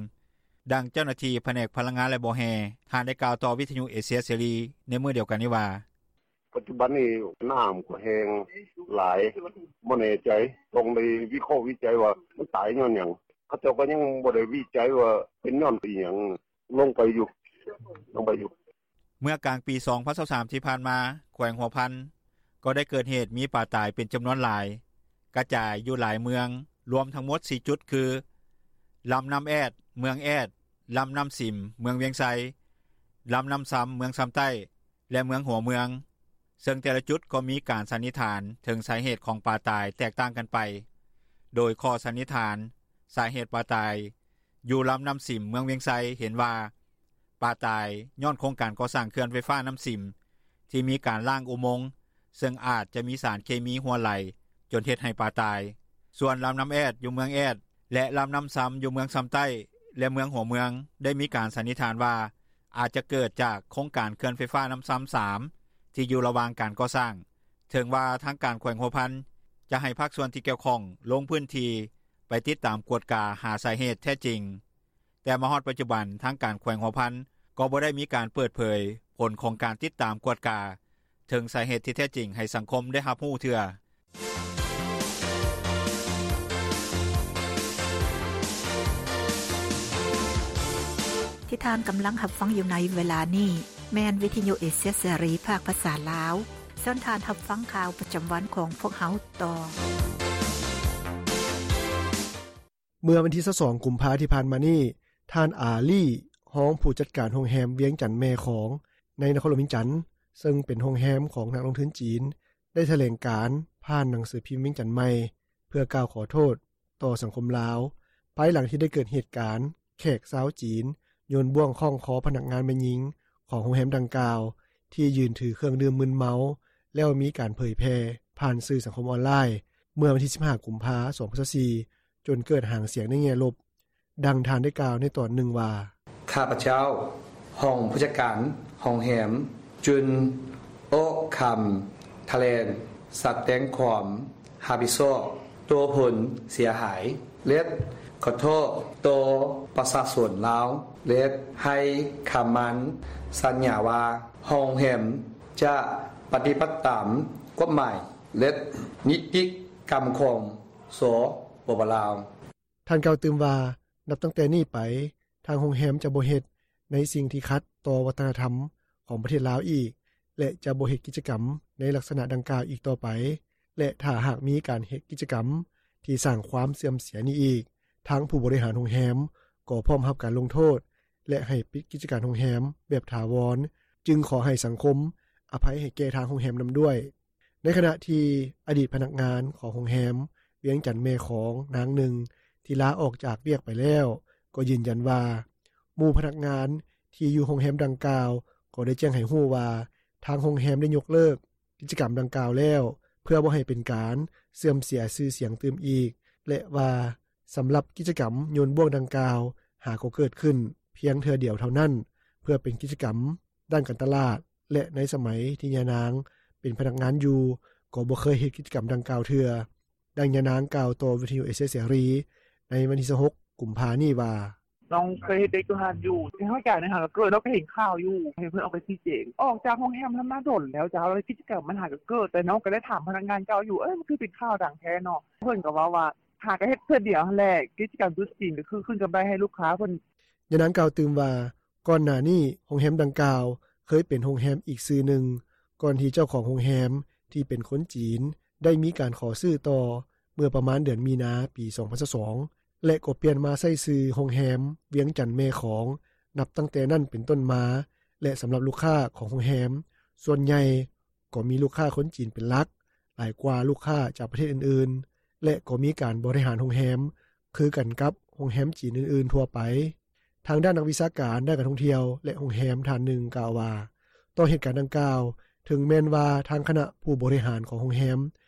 ດັ່ງເຈົ້າໜ້າທີ່ ພະແນກພະລັງງານ ແລະ ບໍ່ແຮ່ ທ່ານໄດ້ກ່າວຕໍ່ ວິທຍຸເອເຊຍເສລີ ໃນມື້ດຽວກັນນີ້ວ່າ: "ປັດຈຸບັນນີ້ ນ້ຳກໍແຫ້ງຫຼາຍ ບໍ່ແນ່ໃຈ ຕ້ອງໄດ້ວິເຄາະວິໄຈວ່າ ມັນຕາຍຍ້ອນຫຍັງ ເຂົາເຈົ້າກໍຍັງບໍ່ໄດ້ວິໄຈວ່າ ເປັນຍ້ອນອີ່ຫຍັງ ລົງໄປຢູ່ ລົງໄປຢູ່." ເມື່ອກາງປີ ສອງພັນຊາວສາມ ທີ່ຜ່ານມາ ແຂວງຫົວພັນ ກໍໄດ້ເກີດເຫດມີປາຕາຍ ເປັນຈຳນວນຫຼາຍ ກະຈາຍຢູ່ຫຼາຍເມືອງ ລວມທັງໝົດ ສີ່ຈຸດ ຄື ລຳນ້ຳແອດ ເມືອງແອດ, ລຳນ້ຳສິມ ເມືອງວຽງໄຊ, ລຳນ້ຳຊຳ ເມືອງຊຳໃຕ້ ແລະ ເມືອງຫົວເມືອງ ເຊິ່ງແຕ່ລະຈຸດ ກໍມີການສັນນິຖານ ເຖິງສາເຫດຂອງປາຕາຍ ແຕກຕ່າງກັນໄປ. ໂດຍຂໍ້ສັນນິຖານ ສາເຫດປາຕາຍ ຢູ່ລຳນ້ຳສິມ ເມືອງວຽງໄຊ ເຫັນວ່າ ປາຕາຍຍ້ອນໂຄງການກໍ່ສ້າງ ເຂື່ອນໄຟຟ້ານ້ຳສິມ ທີ່ມີການລ້າງອຸມົງ ເຊິ່ງອາດຈະມີສານເຄມີຮົ່ວໄຫຼ ຈົນເຮັດໃຫ້ປາຕາຍ. ສ່ວນລຳນ້ຳແອດ ຢູ່ເມືອງແອດ ແລະ ລຳນ້ຳຊຳ ຢູ່ເມືອງຊຳໃຕ້ ແລະ ເມືອງຫົວເມືອງ ໄດ້ມີການສັນນິຖານວ່າ ອາດຈະເກີດຈາກໂຄງການເຂື່ອນໄຟຟ້ານ້ຳຊຳ ສາມ ທີ່ຢູ່ລະຫວ່າງການກໍ່ສ້າງ. ເຖິງວ່າທາງການແຂວງຫົວພັນ ຈະໃຫ້ພາກສ່ວນທີ່ກ່ຽວຂ້ອງ ລົງພື້ນທີ່ ໄປຕິດຕາມກວດກາ ຫາສາເຫດແທ້ຈິງ, ແຕ່ມາຮອດປັດຈຸບັນ ທາງການແຂວງຫົວພັນ ກໍບໍ່ໄດ້ມີການເປີດເຜີຍ ຜົນຂອງການຕິດຕາມກວດກາ ເຖິງສາເຫດທີ່ແທ້ຈິງ ໃຫ້ສັງຄົມໄດ້ຮັບຮູ້ເທື່ອ. ທີ່ທ່ານກຳລັງຮັບຟັງຢູ່ໃນເວລານີ້ ແມ່ນວິທຍຸເອເຊຍເສລີ ພາກພາສາລາວ. ເຊີນທ່ານຮັບຟັງຂ່າວປະຈຳວັນຂອງພວກເຮົາຕໍ່. ເມື່ອວັນທີ ຊາວສອງ ກຸມພາ ທີ່ຜ່ານມານີ້, ທ່ານ ອາລີ ຮອງຜູ້ຈັດການໂຮງແຮມວຽງຈັນແມ່ຂອງ ໃນນະຄອນຫຼວງວຽງຈັນ, ເຊິ່ງເປັນໂຮງແຮມຂອງນັກລົງທຶນຈີນ, ໄດ້ຖະແຫຼງການຜ່ານໜັງສືພິມວຽງຈັນໃໝ່ ເພື່ອກ່າວຂໍໂທດຕໍ່ສັງຄົມລາວ, ພາຍຫຼັງທີ່ໄດ້ເກີດເຫດການແຂກຊາວຈີນ ໂຍນບ່ວງຄ້ອງຄໍພະນັກງານແມ່ຍິງຂອງໂຮງແຮມດັ່ງກ່າວ ທີ່ຢືນຖືເຄື່ອງດື່ມມຶນເມົາ ແລ້ວມີການເຜີຍແຜ່ຜ່ານສື່ສັງຄົມອອນລາຍ ເມື່ອວັນທີ ສິບຫ້າ ກຸມພາ ສອງພັນຊາວສີ່ ຈົນເກີດຫາງສຽງໃນແງ່ລົບ. ດັ່ງທ່ານໄດ້ກ່າວໃນຕອນໜຶ່ງວ່າ: "ຂ້າພະເຈົ້າ ຮອງຜູ້ຈັດການໂຮງແຮມ ຈຶ່ງອອກຄຳຖະແຫຼງສະແດງຄວາມຮັບຜິດຊອບຕໍ່ຜົນເສຍຫາຍ ແລະ ຂໍໂທດຕໍ່ປະຊາຊົນລາວ ແລະ ໃຫ້ຄຳໝັ້ນສັນຍາວ່າ ໂຮງແຮມຈະປະຕິບັດຕາມກົດໝາຍ ແລະ ນິຕິກຳຂອງ ສປປ ລາວ." ທ່ານກ່າວຕື່ມວ່າ ນັບຕັ້ງແຕ່ນີ້ໄປ, ທາງໂຮງແຮມຈະບໍ່ເຮັດໃນສິ່ງທີ່ຂັດຕໍ່ວັດທະນະທຳຂອງປະເທດລາວອີກ ແລະ ຈະບໍ່ເຮັດກິດຈະກຳໃນລັກສະນະດັ່ງກ່າວອີກຕໍ່ໄປ ແລະ ຖ້າຫາກມີການເຮັດກິດຈະກຳທີ່ສ້າງຄວາມເສື່ອມເສຍນີ້ອີກ, ທາງຜູ້ບໍລິຫານໂຮງແຮມກໍພ້ອມຮັບການລົງໂທດ ແລະ ໃຫ້ປິດກິດຈະການໂຮງແຮມແບບຖາວອນ, ຈຶ່ງຂໍໃຫ້ສັງຄົມອະໄພໃຫ້ແກ່ທາງໂຮງແຮມນຳດ້ວຍ. ໃນຂະນະທີ່ອະດີດພະນັກງານຂອງໂຮງແຮມວຽງຈັນແມ່ຂອງນາງໜຶ່ງ ທີ່ລາອອກຈາກວຽກໄປແລ້ວ ກໍຢືນຢັນວ່າ ໝູ່ພະນັກງານທີ່ຢູ່ໂຮງແຮມດັ່ງກ່າວ ກໍໄດ້ແຈ້ງໃຫ້ຮູ້ວ່າ ທາງໂຮງແຮມໄດ້ຍົກເລີກກິດຈະກຳດັ່ງກ່າວແລ້ວ ເພື່ອບໍ່ໃຫ້ເປັນການເສື່ອມເສຍຊື່ສຽງຕື່ມອີກ ແລະ ວ່າ ສຳລັບກິດຈະກຳໂຍນບ້ວງດັ່ງກ່າວ ຫາກໍເກີດຂຶ້ນພຽງເທື່ອດຽວເທົ່ານັ້ນ ເພື່ອເປັນກິດຈະກຳດ້ານການຕະຫຼາດ ແລະ ໃນສະໄໝທີ່ຍານາງເປັນພະນັກງານຢູ່ ກໍບໍ່ເຄີຍເຮັດກິດຈະກຳດັ່ງກ່າວເທື່ອ. ດັ່ງຍານາງກ່າວຕໍ່ວິທຍຸເອເຊຍເສລີ ໃນວັນທີຊາວຫົກ ກຸມພານີ້ວ່າ: “ນ້ອງເຄີຍເຮັດວຽກຢູ່ຫັ້ນຢູ່ ໃນຫ້ອງການຫັ້ນກໍເກີດ ນ້ອງກໍເຫັນຂ່າວຢູ່ ເຫັນເພິ່ນອອກໄປຊີ້ແຈງ ອອກຈາກໂຮງແຮມຫັ້ນມາດົນແລ້ວເຈົ້າ ແລ້ວກິດຈະກຳມັນຫາກໍເກີດ ແຕ່ນ້ອງກໍໄດ້ຖາມພະນັກງານເກົ່າຢູ່ ເອີ ມັນຄືເປັນຂ່າວດັງແທ້ເນາະ ເພິ່ນກໍເວົ້າວ່າ ຫາກໍເຮັດເທື່ອດຽວຫັ້ນແຫຼະ ກິດຈະກຳຈຸດຈີນກໍຄືຄືນກຳໄລໃຫ້ລູກຄ້າເພິ່ນ.” ຍານາງກ່າວຕື່ມວ່າ ກ່ອນໜ້ານີ້ໂຮງແຮມດັ່ງກ່າວ ເຄີຍເປັນໂຮງແຮມອີກຊື່ໜຶ່ງ ກ່ອນທີ່ເຈົ້າຂອງໂຮງແຮມທີ່ເປັນຄົນຈີນ ໄດ້ມີການຂໍຊື້ຕໍ່ ເມື່ອປະມານເດືອນມີນາ ປີສອງພັນຊາວສອງ ແລະ ກໍປ່ຽນມາໃຊ້ຊື່ໂຮງແຮມວຽງຈັນແມ່ຂອງ ນັບຕັ້ງແຕ່ນັ້ນເປັນຕົ້ນມາ ແລະ ສຳລັບລູກຄ້າຂອງໂຮງແຮມ ສ່ວນໃຫຍ່ກໍມີລູກຄ້າຄົນຈີນເປັນຫຼັກ ຫຼາຍກວ່າລູກຄ້າຈາກປະເທດອື່ນໆ ແລະ ກໍມີການບໍລິຫານໂຮງແຮມຄືກັນກັບໂຮງແຮມຈີນອື່ນໆທົ່ວໄປ. ທາງດ້ານນັກວິຊາການດ້ານການທ່ອງທ່ຽວ ແລະ ໂຮງແຮມທ່ານໜຶ່ງກ່າວວ່າ ຕໍ່ເຫດການດັ່ງກ່າວ ເຖິງແມ່ນວ່າທາງຄະນະຜູ້ບໍລິຫານຂອງໂຮງແຮມ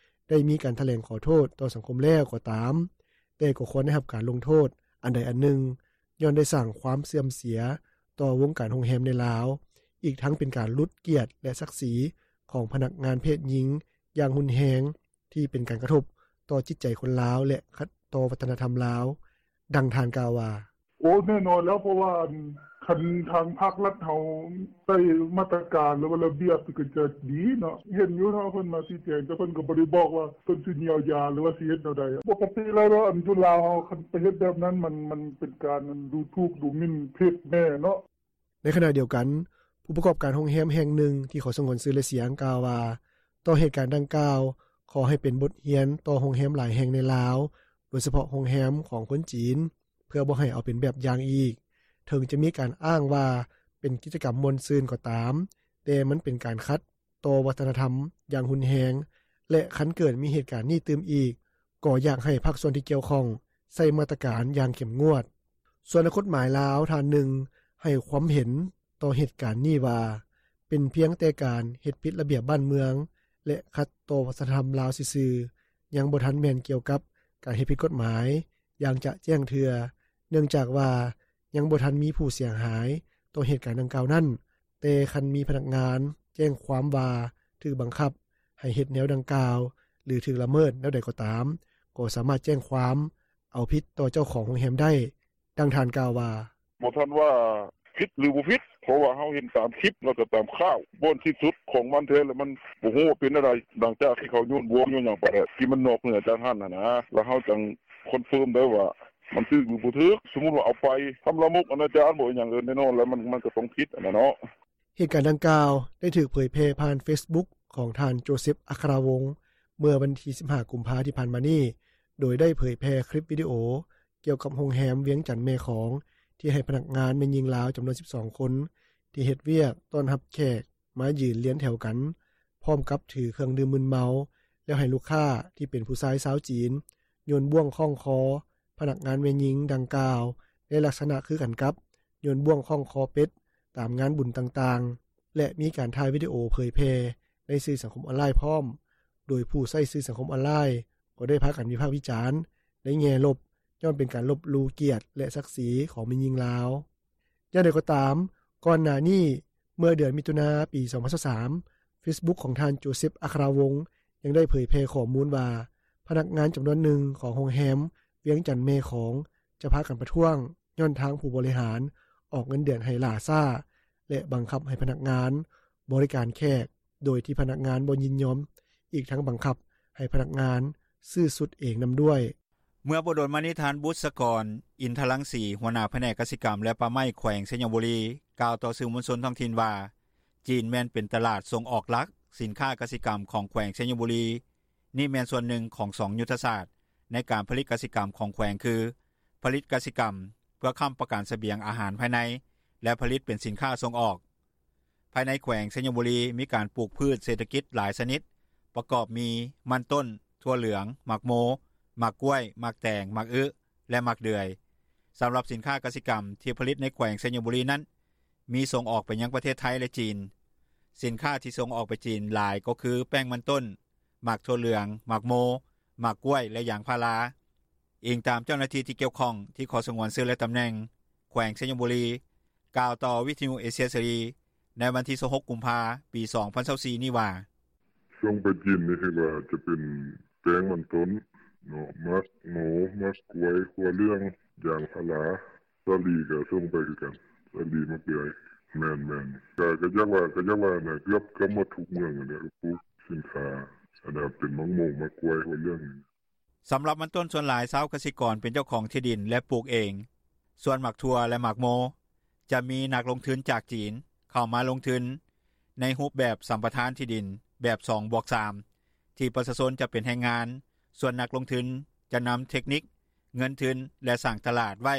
ໄດ້ມີການຖະແຫຼງຂໍໂທດຕໍ່ສັງຄົມແລ້ວກໍຕາມ, ແຕ່ກໍຄວນໄດ້ຮັບການລົງໂທດອັນໃດອັນໜຶ່ງ ຍ້ອນໄດ້ສ້າງຄວາມເສື່ອມເສຍຕໍ່ວົງການໂຮງແຮມໃນລາວ, ອີກທັງເປັນການຫຼຸດກຽດ ແລະ ສັກສີຂອງພະນັກງານເພດຍິງຢ່າງຮຸນແຮງ ທີ່ເປັນການກະທົບຕໍ່ຈິດໃຈຄົນລາວ ແລະ ຂັດຕໍ່ວັດທະນະທຳລາວ. ດັ່ງທ່ານກ່າວວ່າ: “ໂອ້ ແນ່ນອນແລ້ວ ເພາະວ່າ ອັນ ຄັນທາງພາກລັດເຮົາໃຊ້ມາດຕະການ ຫຼືວ່າລະບຽບ ກໍຈະດີເນາະ ເຫັນຢູ່ເນາະ ເພິ່ນມາຊີ້ແຈງ ແຕ່ເພິ່ນກໍບໍ່ໄດ້ບອກວ່າ ເພິ່ນຊິຢຽວຢາ ຫຼືວ່າຊິເຮັດແນວໃດ. ປົກກະຕິແລ້ວ ຢູ່ລາວເຮົາ ຄັນໄປເຮັດແບບນັ້ນ ມັນ ມັນເປັນການດູຖູກດູໝິ່ນເພດແມ່ເນາະ.” ໃນຂະນະດຽວກັນ ຜູ້ປະກອບການໂຮງແຮມແຫ່ງໜຶ່ງທີ່ຂໍສະຫງວນຊື່ ແລະ ສຽງ ກ່າວວ່າ ຕໍ່ເຫດການດັ່ງກ່າວ ຂໍໃຫ້ເປັນບົດຮຽນຕໍ່ໂຮງແຮມຫຼາຍແຫ່ງໃນລາວ ໂດຍສະເພາະໂຮງແຮມຂອງຄົນຈີນ ເພື່ອບໍ່ໃຫ້ເອົາເປັນແບບຢ່າງອີກ. ເຖິງຈະມີການອ້າງວ່າເປັນກິດຈະກຳມ່ວນຊື່ນກໍຕາມ, ແຕ່ມັນເປັນການຂັດຕໍ່ວັດທະນະທຳຢ່າງຮຸນແຮງ ແລະ ຄັນເກີດມີເຫດການນີ້ຕື່ມອີກ ກໍຢາກໃຫ້ພາກສ່ວນທີ່ກ່ຽວຂ້ອງໃຊ້ມາດຕະການຢ່າງເຂັ້ມງວດ. ສ່ວນນັກກົດໝາຍລາວທ່ານໜຶ່ງໃຫ້ຄວາມເຫັນຕໍ່ເຫດການນີ້ວ່າ ເປັນພຽງແຕ່ການເຮັດຜິດລະບຽບບ້ານເມືອງ ແລະ ຂັດຕໍ່ວັດທະນະທຳລາວຊື່ໆ, ຍັງບໍ່ທັນແມ່ນກ່ຽວກັບການເຮັດຜິດກົດໝາຍຢ່າງຈະແຈ້ງເທື່ອ, ເນື່ອງຈາກວ່າຍັງບໍ່ທັນມີຜູ້ເສຍຫາຍຕໍ່ເຫດການດັ່ງກ່າວນັ້ນ, ແຕ່ຄັນມີພະນັກງານແຈ້ງຄວາມວ່າຖືກບັງຄັບໃຫ້ເຮັດແນວດັ່ງກ່າວ ຫຼື ຖືກລະເມີດແນວໃດກໍຕາມ, ກໍສາມາດແຈ້ງຄວາມເອົາຜິດຕໍ່ເຈົ້າຂອງໂຮງແຮມໄດ້. ດັ່ງທ່ານກ່າວວ່າ: “ບໍ່ທັນວ່າຜິດ ຫຼື ບໍ່ຜິດ ເພາະວ່າເຮົາເຫັນຕາມຄລິບ ແລ້ວກໍຕາມຂ່າວ ບ່ອນສິ້ນສຸດຂອງມັນແທ້ ແລ້ວມັນບໍ່ຮູ້ວ່າເປັນແນວໃດ ຫຼັງຈາກທີ່ເຂົາໂຍນບ້ວງໂຍນຫຍັງໄປແລ້ວ ທີ່ມັນນອກເໜືອຈາກຫັ້ນຫັ້ນນະ ແລ້ວເຮົາຈັ່ງຄອນເຟີມໄດ້ວ່າ ມັນຖືກ ຫຼື ບໍ່ຖືກ. ສົມມຸດວ່າເອົາໄປທຳລາມົກອະນາຈານບໍ ອີ່ຫຍັງ ແນ່ນອນແລ້ວ ມັນ ມັນກໍຕ້ອງຜິດຫັ້ນນະເນາະ.” ເຫດການດັ່ງກ່າວໄດ້ຖືກເຜີຍແຜ່ຜ່ານເຟສບຸກຂອງທ່ານ ໂຈເຊັບ ອັກຄະລາວົງ ເມື່ອວັນທີສິບຫ້າ ກຸມພາທີ່ຜ່ານມານີ້, ໂດຍໄດ້ເຜີຍແຜ່ຄລິບວິດີໂອກ່ຽວກັບໂຮງແຮມວຽງຈັນແມ່ຂອງ ທີ່ໃຫ້ພະນັກງານແມ່ຍິງລາວຈຳນວນສິບສອງຄົນ ທີ່ເຮັດວຽກຕ້ອນຮັບແຂກມາຢືນລຽນແຖວກັນ ພ້ອມກັບຖືເຄື່ອງດື່ມມຶນເມົາ ແລ້ວໃຫ້ລູກຄ້າທີ່ເປັນຜູ້ຊາຍຊາວຈີນ ໂຍນບ້ວງຄ້ອງຄໍພະນັກງານແມ່ຍິງດັ່ງກ່າວ ໃນລັກສະນະຄືກັນກັບໂຍນບ້ວງຄ້ອງຄໍເປັດຕາມງານບຸນຕ່າງໆ ແລະ ມີການຖ່າຍວິດີໂອເຜີຍແຜ່ໃນສື່ສັງຄົມອອນລາຍພ້ອມ, ໂດຍຜູ້ໃຊ້ສື່ສັງຄົມອອນລາຍກໍໄດ້ພາກັນວິພາກວິຈານໃນແງ່ລົບ ຍ້ອນເປັນການລົບຫຼູ່ກຽດ ແລະ ສັກສີຂອງແມ່ຍິງລາວ. ຢ່າງໃດກໍຕາມ, ກ່ອນໜ້ານີ້ ເມື່ອເດືອນມິຖຸນາ ປີສອງພັນຊາວສາມ ເຟສບຸກຂອງທ່ານ ໂຈເຊັບ ອັກຄະລາວົງ ຍັງໄດ້ເຜີຍແຜ່ຂໍ້ມູນວ່າ ພະນັກງານຈຳນວນໜຶ່ງຂອງໂຮງແຮມວຽງຈັນແມ່ຂອງ ຈະພາກັນປະທ້ວງ ຍ້ອນທາງຜູ້ບໍລິຫານອອກເງິນເດືອນໃຫ້ຫຼ້າຊ້າ ແລະ ບັງຄັບໃຫ້ພະນັກງານບໍລິການແຂກ ໂດຍທີ່ພະນັກງານບໍ່ຍິນຍອມ, ອີກທັງບັງຄັບໃຫ້ພະນັກງານຊື້ຊຸດເອງນຳດ້ວຍ. ເມື່ອບໍ່ດົນມານີ້ ທ່ານ ບຸດສະກອນ ອິນທະລັງສີ ຫົວໜ້າພະແນກກະສິກຳ ແລະ ປ່າໄມ້ ແຂວງໄຊຍະບູລີ ກ່າວຕໍ່ສື່ມວນຊົນທ້ອງຖິ່ນວ່າ ຈີນແມ່ນເປັນຕະຫຼາດສົ່ງອອກຫຼັກສິນຄ້າກະສິກຳຂອງແຂວງໄຊຍະບູລີ. ນີ້ແມ່ນສ່ວນໜຶ່ງຂອງສອງຍຸດທະສາດໃນການຜະລິດກະສິກຳຂອງແຂວງ ຄື ຜະລິດກະສິກຳເພື່ອຄ້ຳປະກັນສະບຽງອາຫານພາຍໃນ ແລະ ຜະລິດເປັນສິນຄ້າສົ່ງອອກ. ພາຍໃນແຂວງໄຊຍະບູລີ ມີການປູກພືດເສດຖະກິດຫຼາຍຊະນິດ ປະກອບມີ ມັນຕົ້ນ, ຖົ່ວເຫຼືອງ, ໝາກໂມ, ໝາກກ້ວຍ, ໝາກແຕງ, ໝາກອຶ ແລະ ໝາກເດືອຍ. ສຳລັບສິນຄ້າກະສິກຳທີ່ຜະລິດໃນແຂວງໄຊຍະບູລີນັ້ນ ມີສົ່ງອອກໄປຍັງປະເທດໄທ ແລະ ຈີນ. ສິນຄ້າທີ່ສົ່ງອອກໄປຈີນຫຼາຍກໍຄື ແປ້ງມັນຕົ້ນ, ໝາກຖົ່ວເຫຼືອງ, ໝາກໂມ, ໝາກກ້ວຍ ແລະ ຢາງພາລາ. ອີງຕາມເຈົ້າໜ້າທີ່ ທີ່ກ່ຽວຂ້ອງ ທີ່ຂໍສະຫງວນຊື່ ແລະຕຳແໜ່ງ ແຂວງໄຊຍະບູລີ ກ່າວຕໍ່ວິທຍຸເອເຊຍເສລີ ໃນວັນທີ 26 ກຸມພາ 2024 ນີ້ວ່າ: "ສົ່ງໄປຈີນນີ້ ເຫັນວ່າຈະເປັນແປ້ງມັນຕົ້ນເນາະ ໝາກໂມ ໝາກກ້ວຍ ຖົ່ວເຫຼືອງ ຢາງພາລາ ສາລີກະສົ່ງໄປຄືກັນ ສາລີ ໝາກເດືອຍ ແມ່ນໆ ກະຢາກວ່າ ກະຢາກວ່າ ເກືອບໝົດທຸກເມືອງຫັ້ນແຫຼະ ກະປູກສິນຄ້າ ອັນເປັນໝາກໂມ ໝາກກ້ວຍ ຖົ່ວເຫຼືອງ." ສຳລັບມັນຕົ້ນ ສ່ວນຫຼາຍຊາວກະສິກອນ ເປັນເຈົ້າຂອງທີ່ດິນ ແລະປູກເອງ. ສ່ວນໝາກຖົ່ວ ແລະໝາກໂມ ຈະມີນັກລົງທຶນຈາກຈີນ ເຂົ້າມາລົງທຶນ ໃນຮູບແບບສຳປະທານທີ່ດິນ ແບບ 2+3 ທີ່ປະຊາຊົນຈະເປັນແຮງງານ ສ່ວນນັກລົງທຶນ ຈະນຳເທັກນິກ ເງິນທຶນ ແລະສ້າງຕະຫຼາດໄວ້.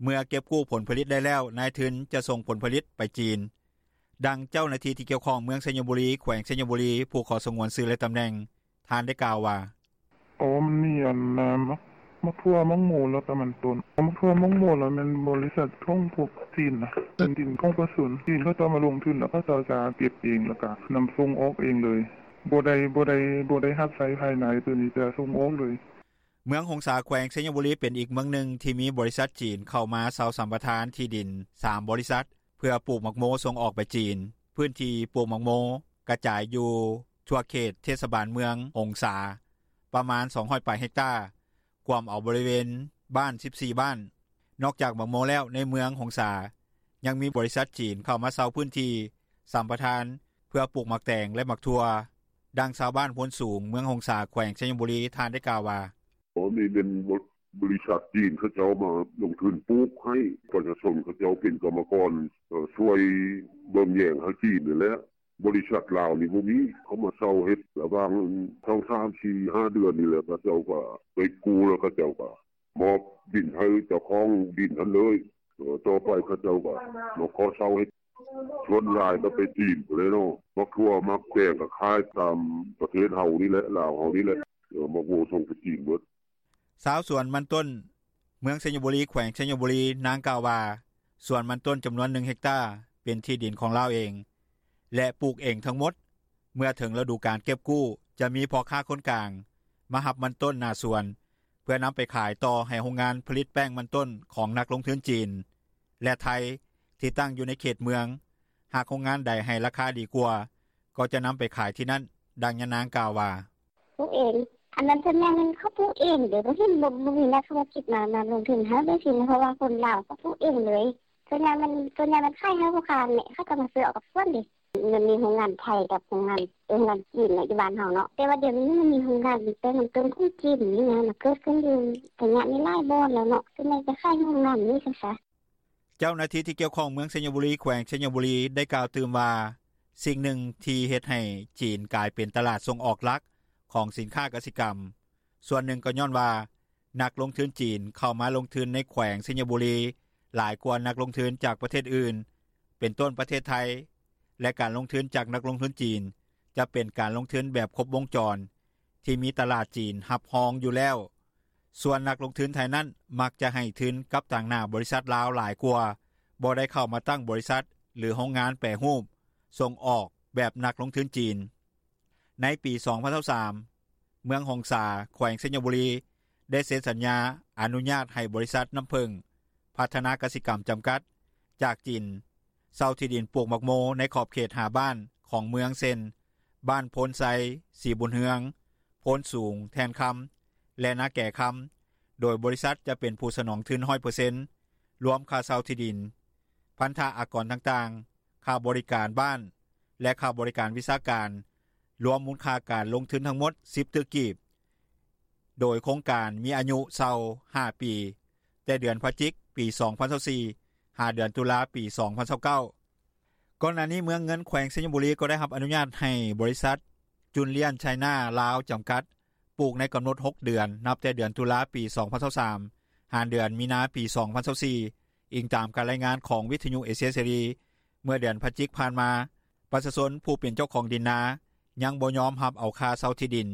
ເມື່ອເກັບກູ້ຜົນຜະລິດໄດ້ແລ້ວ ນາຍທຶນຈະສົ່ງຜົນຜະລິດໄປຈີນ. ດັ່ງເຈົ້າໜ້າທີ່ ທີ່ກ່ຽວຂ້ອງ ເມືອງໄຊຍະບູລີ ແຂວງໄຊຍະບູລີ ຜູ້ຂໍສະຫງວນຊື່ ແລະຕຳແໜ່ງ ທ່ານໄດ້ກ່າວວ່າ: "ໂອ ມັນມີອັນ ໝາກ ໝາກຖົ່ວ ໝາກໂມ ແລ້ວກະມັນຕົ້ນ ໝາກຖົ່ວ ໝາກໂມ ລະແມ່ນບໍລິສັດຂອງພວກຈີນນະ ເປັນດິນຂອງປະຊາຊົນ ຈີນເຂົາເຈົ້າມາລົງທຶນ ແລ້ວເຂົາເຈົ້າຈະເກັບເອງ ແລ້ວກະນຳສົ່ງອອກເອງເລີຍ ບໍ່ໄດ້ ບໍ່ໄດ້ຮັບໃຊ້ພາຍໃນ ໂຕນີ້ຈະສົ່ງອອກເລີຍ." ເມືອງຫົງສາ ແຂວງໄຊຍະບູລີ ເປັນອີກເມືອງໜຶ່ງ ທີ່ມີບໍລິສັດຈີນ ເຂົ້າມາເຊົ່າສຳປະທານທີ່ດິນ 3 ບໍລິສັດ ເພື່ອປູກໝາກໂມ ສົ່ງອອກໄປຈີນ. ພື້ນທີ່ປູກໝາກໂມ ກະຈາຍຢູ່ທົ່ວເຂດເທດສະບານເມືອງຫົງສາ ປະມານ 200 ປາຍເຮັກຕາ ກວມເອົາບໍລິເວນບ້ານ 14 ບ້ານ. ນອກຈາກໝາກໂມແລ້ວ ໃນເມືອງຫົງສາ ຍັງມີບໍລິສັດຈີນ ເຂົ້າມາເຊົ່າພື້ນທີ່ສຳປະທານ ເພື່ອປູກໝາກແຕງ ແລະໝາກຖົ່ວ. ດັ່ງຊາວບ້ານໂພນສູງ ເມືອງຫົງສາ ແຂວງໄຊຍະບູລີ ທ່ານໄດ້ກ່າວວ່າ: "ໂອ ນີ້ແມ່ນ ບໍລິສັດຈີນ ເຂົາເຈົ້າມາລົງທຶນປູກໃຫ້ ປະຊາຊົນເຂົາເຈົ້າເປັນກຳມະກອນ ຊ່ວຍເບິ່ງແຍງໃຫ້ຈີນຫັ້ນແຫຼະ ບໍລິສັດລາວນີ້ບໍ່ມີ ເຂົາມາເຊົ່າເຮັດ ລະຫວ່າງ ສອງ ສາມ ສີ່ ຫ້າ ເດືອນນີ້ແຫຼະ ເຂົາເຈົ້າກະໄດ້ກູ້ ແລ້ວເຂົາເຈົ້າກະມອບດິນໃຫ້ເຈົ້າຂອງດິນຫັ້ນເລີຍ ຕໍ່ໄປເຂົາເຈົ້າກະມາຂໍເຊົ່າເຮັດ ສ່ວນຫຼາຍກະໄປຈີນພຸ້ນແຫຼະເນາະ ໝາກຖົ່ວ ໝາກແຕງ ກະຂາຍຕາມປະເທດເຮົານີ້ແຫຼະ ລາວເຮົານີ້ແຫຼະ ໝາກໂມສົ່ງໄປຈີນໝົດ." ຊາວສວນມັນຕົ້ນ ເມືອງໄຊຍະບູລີ ແຂວງໄຊຍະບູລີ ນາງກ່າວວ່າ ສວນມັນຕົ້ນຈຳນວນ 1 ເຮັກຕາ ເປັນທີ່ດິນຂອງລາວເອງ ແລະປູກເອງທັງໝົດ. ເມື່ອເຖິງລະດູການເກັບກູ້ ຈະມີພໍ່ຄ້າຄົນກາງ ມາຮັບມັນຕົ້ນໜ້າສວນ ເພື່ອນຳໄປຂາຍຕໍ່ໃຫ້ໂຮງງານຜະລິດແປ້ງມັນຕົ້ນ ຂອງນັກລົງທຶນຈີນ ແລະໄທ ທີ່ຕັ້ງຢູ່ໃນເຂດເມືອງ. ຫາກໂຮງງານໃດໃຫ້ລາຄາດີກວ່າ ກໍຈະນຳໄປຂາຍທີ່ນັ້ນ. ດັ່ງຍານາງກ່າວວ່າ: "ປູກເອງ ອັນນັ້ນສ່ວນໃຫຍ່ແມ່ນເຂົາປູກເອງເດ້ ບໍ່ເຫັນ ບໍ່ມີນັກທຸລະກິດມາລົງທຶນໃຫ້ເລີຍ ເພາະວ່າຄົນລາວເຂົາປູກເອງເລີຍ ສ່ວນໃຫຍ່ແມ່ນ ສ່ວນໃຫຍ່ແມ່ນຂາຍໃຫ້ພໍ່ຄ້າ ເຂົາເຈົ້າມາຊື້ເອົາກັບສວນເດ້ ມັນມີໂຮງງານໄທ ກັບໂຮງງານ ໂຮງງານຈີນຢູ່ບ້ານເຮົາເນາະ ແຕ່ວ່າດຽວນີ້ມັນມີໂຮງງານແປ້ງມັນຕົ້ນຂອງຈີນນີ້ນະ ມັນເກີດຂຶ້ນຢູ່ໄຊຍະນີ້ຫຼາຍບ່ອນແລ້ວເນາະ ສ່ວນໃຫຍ່ຈະຂາຍໂຮງງານນີ້ຊະ." ເຈົ້າໜ້າທີ່ ທີ່ກ່ຽວຂ້ອງ ເມືອງໄຊຍະບູລີ ແຂວງໄຊຍະບູລີ ໄດ້ກ່າວຕື່ມວ່າ ສິ່ງໜຶ່ງທີ່ເຮັດໃຫ້ຈີນກາຍເປັນຕະຫຼາດສົ່ງອອກຫຼັກ ຂອງສິນຄ້າກະສິກຳ ສ່ວນໜຶ່ງກໍຍ້ອນວ່າ ນັກລົງທຶນຈີນ ເຂົ້າມາລົງທຶນໃນແຂວງໄຊຍະບູລີ ຫຼາຍກວ່ານັກລົງທຶນຈາກປະເທດອື່ນ ເປັນຕົ້ນປະເທດໄທ ແລະການລົງທຶນຈາກນັກລົງທຶນຈີນ ຈະເປັນການລົງທຶນແບບຄົບວົງຈອນ ທີ່ມີຕະຫຼາດຈີນຮັບຮອງຢູ່ແລ້ວ. ສ່ວນນັກລົງທຶນໄທນັ້ນ ມັກຈະໃຫ້ທຶນກັບຕາງໜ້າບໍລິສັດລາວຫຼາຍກວ່າ ບໍ່ໄດ້ເຂົ້າມາຕັ້ງບໍລິສັດ ຫຼືໂຮງງານແປຮູບສົ່ງອອກແບບນັກລົງທຶນຈີນ. ໃນປີ 2023 ເມືອງຫົງສາ ແຂວງໄຊຍະບູລີ ໄດ້ເຊັນສັນຍາອະນຸຍາດໃຫ້ບໍລິສັດ ນ້ຳເຜິ້ງ ພັດທະນາກະສິກຳ ຈຳກັດ ຈາກຈີນ ເຊົ່າທີ່ດິນປູກໝາກໂມ ໃນຂອບເຂດ 5 ບ້ານຂອງເມືອງ ເຊັ່ນ ບ້ານໂພນໄຊ, ສີບຸນເຮືອງ, ໂພນສູງ, ແທ່ນຄຳ ແລະ ນາແກຄຳ ໂດຍບໍລິສັດຈະເປັນຜູ້ສະໜອງທຶນ 100% ລວມຄ່າເຊົ່າທີ່ດິນ, ພັນທະອາກອນຕ່າງໆ, ຄ່າບໍລິການບ້ານ ແລະ ຄ່າບໍລິການວິຊາການ ລວມມູນຄ່າການລົງທຶນທັງໝົດ 10 ຕື້ກີບ ໂດຍໂຄງການມີອາຍຸເຊົ່າ 5 ປີ ແຕ່ເດືອນພະຈິກ ປີ 2024 ຫາເດືອນຕຸລາ ປີ 2029. ກ່ອນໜ້ານີ້ ເມືອງເງິນ ແຂວງໄຊຍະບູລີ ກໍໄດ້ຮັບອະນຸຍາດໃຫ້ບໍລິສັດ ຈຸນລຽນ ໄຊນາ ລາວ ຈຳກັດ ປູກໃນກຳນົດ 6 ເດືອນ ນັບແຕ່ເດືອນຕຸລາ ປີ 2023 ຫາເດືອນມີນາ ປີ 2024, ອີງຕາມການລາຍງານຂອງວິທຍຸເອເຊຍເສລີ. ເມື່ອເດືອນພະຈິກຜ່ານມາ, ປະຊາຊົນຜູ້ເປັນເຈົ້າຂອງດິນນາ ຍັງບໍ່ຍອມຮັບເອົາຄ່າເຊົ່າທີ່ດິນ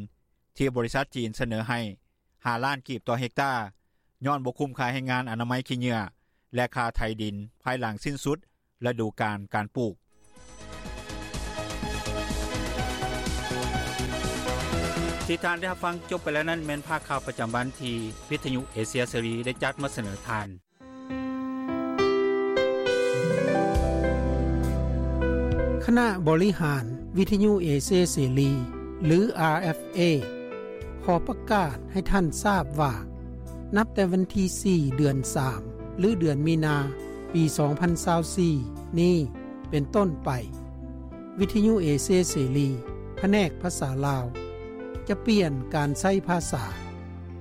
ທີ່ບໍລິສັດຈີນສະເໜີໃຫ້ 5 ລ້ານກີບຕໍ່ເຮັກຕາ ຍ້ອນບໍ່ຄຸ້ມຄ່າແຮງງານອະນາໄມຂີ້ເຫຍື້ອ ແລະ ຄ່າໄຖດິນ ພາຍຫຼັງສິ້ນສຸດລະດູການການປູກ. ທີ່ທ່ານໄດ້ຮັບຟັງຈົບໄປແລ້ວນັ້ນ ແມ່ນພາກຂ່າວປະຈຳວັນທີ່ວິທຍຸເອເຊຍເສລີໄດ້ຈັດມາສະເໜີທ່ານ. ຄະນະບໍລິຫານວິທຍຸເອເຊຍເສລີ ຫຼື ອາ ເອັຟ ເອ ຂໍປະກາດໃຫ້ທ່ານຊາບວ່າ ນັບແຕ່ວັນທີ ສີ່ ເດືອນ ສາມ ຫຼື ເດືອນມີນາ ປີ ສອງພັນຊາວສີ່ ນີ້ເປັນຕົ້ນໄປ, ວິທຍຸເອເຊຍເສລີ ພະແນກພາສາລາວ ຈະປ່ຽນການໃຊ້ພາສາ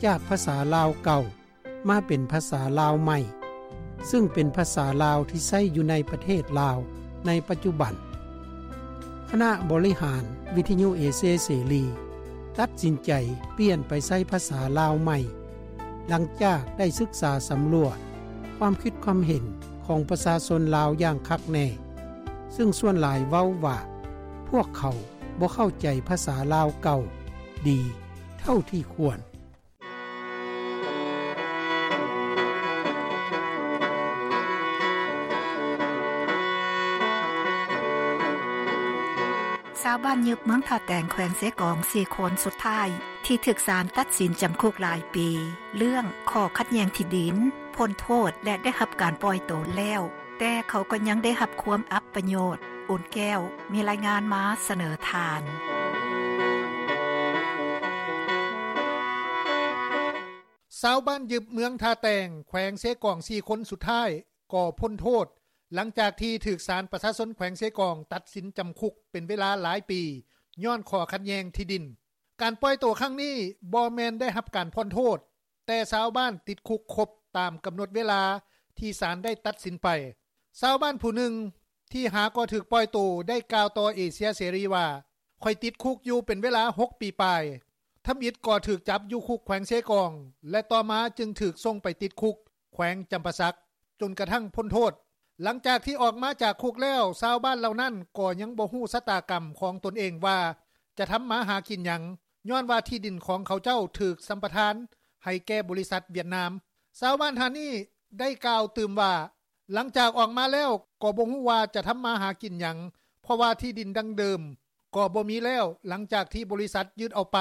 ຈາກພາສາລາວເກົ່າ ມາເປັນພາສາລາວໃໝ່, ຊຶ່ງເປັນພາສາລາວທີ່ໃຊ້ຢູ່ໃນປະເທດລາວໃນປັດຈຸບັນ. ຄະນະບໍລິຫານວິທຍຸເອເຊຍເສລີ ຕັດສິນໃຈປ່ຽນໄປໃຊ້ພາສາລາວໃໝ່ ຫຼັງຈາກໄດ້ສຶກສາສຳຫຼວດຄວາມຄິດຄວາມເຫັນຂອງປະຊາຊົນລາວຢ່າງຄັກແນ່, ຊຶ່ງສ່ວນຫຼາຍເວົ້າວ່າ ພວກເຂົາບໍ່ເຂົ້າໃຈພາສາລາວເກົ່າດີເທົ່າທີ່ຄວນ. ຊາວບ້ານຍຶບເມືອງທ່າແຕງ ແຂວງເຊກອງ ສີ່ຄົນສຸດທ້າຍ ທີ່ຖືກສານຕັດສິນຈຳຄຸກຫຼາຍປີ ເລື່ອງຂໍ້ຂັດແຍ່ງທີ່ດິນ ພົ້ນໂທດ ແລະ ໄດ້ຮັບການປ່ອຍໂຕແລ້ວ, ແຕ່ເຂົາກໍຍັງໄດ້ຮັບຄວາມອັບປະໂຫຍດ. ອຸ່ນແກ້ວ ມີລາຍງານມາສະເໜີທ່ານ. ຊາວບ້ານຍຶບເມືອງທ່າແຕງ ແຂວງເຊກອງ ສີ່ຄົນສຸດທ້າຍກໍພົ້ນໂທດ ຫຼັງຈາກທີ່ຖືກສານປະຊາຊົນແຂວງເຊກອງຕັດສິນຈຳຄຸກເປັນເວລາຫຼາຍປີ ຍ້ອນຂໍ້ຂັດແຍ່ງທີ່ດິນ. ການປ່ອຍໂຕຄັ້ງນີ້ບໍ່ແມ່ນໄດ້ຮັບການຜ່ອນໂທດ, ແຕ່ຊາວບ້ານຕິດຄຸກຄົບຕາມກຳນົດເວລາທີ່ສານໄດ້ຕັດສິນໄປ. ຊາວບ້ານຜູ້ໜຶ່ງທີ່ຫາກໍຖືກປ່ອຍໂຕໄດ້ກ່າວຕໍ່ເອເຊຍເສລີວ່າ, ຂ້ອຍຕິດຄຸກຢູ່ເປັນເວລາຫົກປີປາຍ, ທຳອິດກໍຖືກຈັບຢູ່ຄຸກແຂວງເຊກອງ ແລະ ຕໍ່ມາຈຶ່ງຖືກສົ່ງໄປຕິດຄຸກແຂວງຈຳປາສັກ ຈົນກະທັ້ງພົ້ນໂທດ. ຫຼັງຈາກທີ່ອອກມາຈາກຄຸກແລ້ວ, ຊາວບ້ານເຫຼົ່ານັ້ນກໍຍັງບໍ່ຮູ້ຊະຕາກຳຂອງຕົນເອງວ່າຈະທຳມາຫາກິນຫຍັງ, ຍ້ອນວ່າທີ່ດິນຂອງເຂົາເຈົ້າຖືກສຳປະທານໃຫ້ແກ່ບໍລິສັດຫວຽດນາມ. ຊາວບ້ານທ່ານນີ້ໄດ້ກ່າວຕື່ມວ່າ, ຫຼັງຈາກອອກມາແລ້ວກໍບໍ່ຮູ້ວ່າຈະທຳມາຫາກິນຫຍັງ, ເພາະວ່າທີ່ດິນດັ້ງເດີມກໍບໍ່ມີແລ້ວ, ຫຼັງຈາກທີ່ບໍລິສັດຍຶດເອົາໄປ,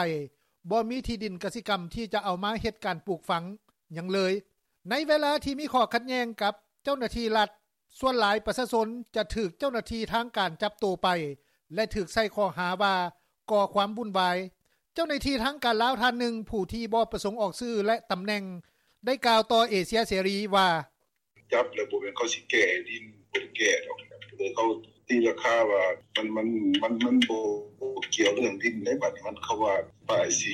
ບໍ່ມີທີ່ດິນກະສິກຳທີ່ຈະເອົາມາເຮັດການປູກຝັງຫຍັງເລີຍ. ໃນເວລາທີ່ມີຂໍ້ຂັດແຍ່ງກັບເຈົ້າໜ້າທີ່ລັດ, ສ່ວນຫຼາຍປະຊາຊົນຈະຖືກເຈົ້າໜ້າທີ່ທາງການຈັບໂຕໄປ ແລະ ຖືກໃສ່ຂໍ້ຫາວ່າກໍ່ຄວາມວຸ້ນວາຍ. ເຈົ້າໜ້າທີ່ທາງການລາວທ່ານໜຶ່ງ ຜູ້ທີ່ບໍ່ປະສົງອອກຊື່ ແລະ ຕຳແໜ່ງ ໄດ້ກ່າວຕໍ່ເອເຊຍເສລີວ່າ, ຈັບແລ້ວບໍ່ແມ່ນເຂົາຊິແກ່ດິນ, ບໍ່ໄດ້ແກ່ດອກ. ເຂົາຕີລາຄາວ່າມັນ, ມັນ, ມັນ, ມັນບໍ່, ບໍ່ກ່ຽວເລື່ອງດິນໃດ໋. ບັດນີ້ມັນ, ເຂົາວ່າປ້າຍສີ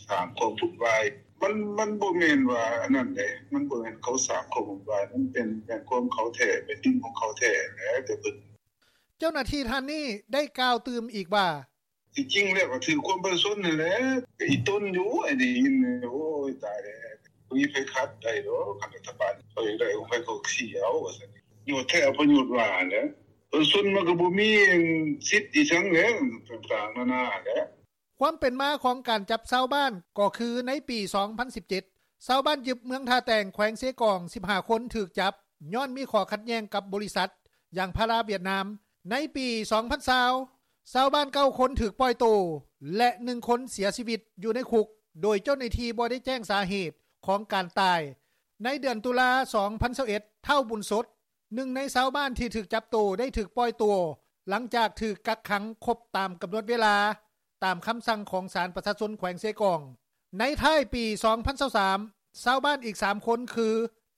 ສ້າງຄວາມວຸ້ນວາຍ. ມັນ, ມັນບໍ່ແມ່ນວ່າອັນນັ້ນເດ້. ມັນບໍ່ແມ່ນເຂົາສ້າງຄວາມວຸ້ນວາຍ. ມັນເປັນ, ແມ່ນຂອງເຂົາແທ້, ແມ່ນດິນຂອງເຂົາແທ້ແຫຼະ, ແຕ່ເພິ່ນ. ເຈົ້າໜ້າທີ່ທ່ານນີ້ໄດ້ກ່າວຕື່ມອີກວ່າ, ທີ່ຈິງແລ້ວກໍຖືກຄວາມປະຊາຊົນນັ້ນແຫຼະ, ອີຕົນຢູ່ ໄອ້ໄດ້ຍິນ, ໂອ້ຍ ຕາຍແລ້ວ, ບໍ່ມີໃຜຂັດໄດ້ດອກ, ຄັນລັດຖະບານເຂົາຢາກໄດ້ຂອງໃຜເຂົາກໍຊີ້ເອົາ ວ່າຊັ້ນ. ປະໂຫຍດແທ້ປະໂຫຍດວ່າຫັ້ນແຫຼະ, ປະຊາຊົນມັນກໍບໍ່ມີສິດອີ່ຫຍັງແຫຼະ, ຕ່າງໆນານາແຫຼະ. ຄວາມເປັນມາຂອງການຈັບຊາວບ້ານກໍຄືໃນປີສອງພັນສິບເຈັດ ຊາວບ້ານຍຶບເມືອງທ່າແຕງ ແຂວງເຊກອງ ສິບຫ້າຄົນຖືກຈັບ ຍ້ອນມີຂໍ້ຂັດແຍ່ງກັບບໍລິສັດຢາງພາລາຫວຽດນາມ. ໃນປີສອງພັນຊາວ ຊາວບ້ານເກົ້າຄົນຖືກປ່ອຍໂຕ ແລະ ໜຶ່ງຄົນເສຍຊີວິດຢູ່ໃນຄຸກ ໂດຍເຈົ້າໜ້າທີ່ບໍ່ໄດ້ແຈ້ງສາເຫດຂອງການຕາຍ. ໃນເດືອນຕຸລາ ສອງພັນຊາວເອັດ ທ້າວ ບຸນສົດ ໜຶ່ງໃນຊາວບ້ານທີ່ຖືກຈັບໂຕໄດ້ຖືກປ່ອຍຕົວ ຫຼັງຈາກຖືກກັກຂັງຄົບຕາມກຳນົດເວລາ ຕາມຄຳສັ່ງຂອງສານປະຊາຊົນແຂວງເຊກອງ. ໃນທ້າຍປີສອງພັນຊາວສາມ ຊາວບ້ານອີກສາມຄົນຄື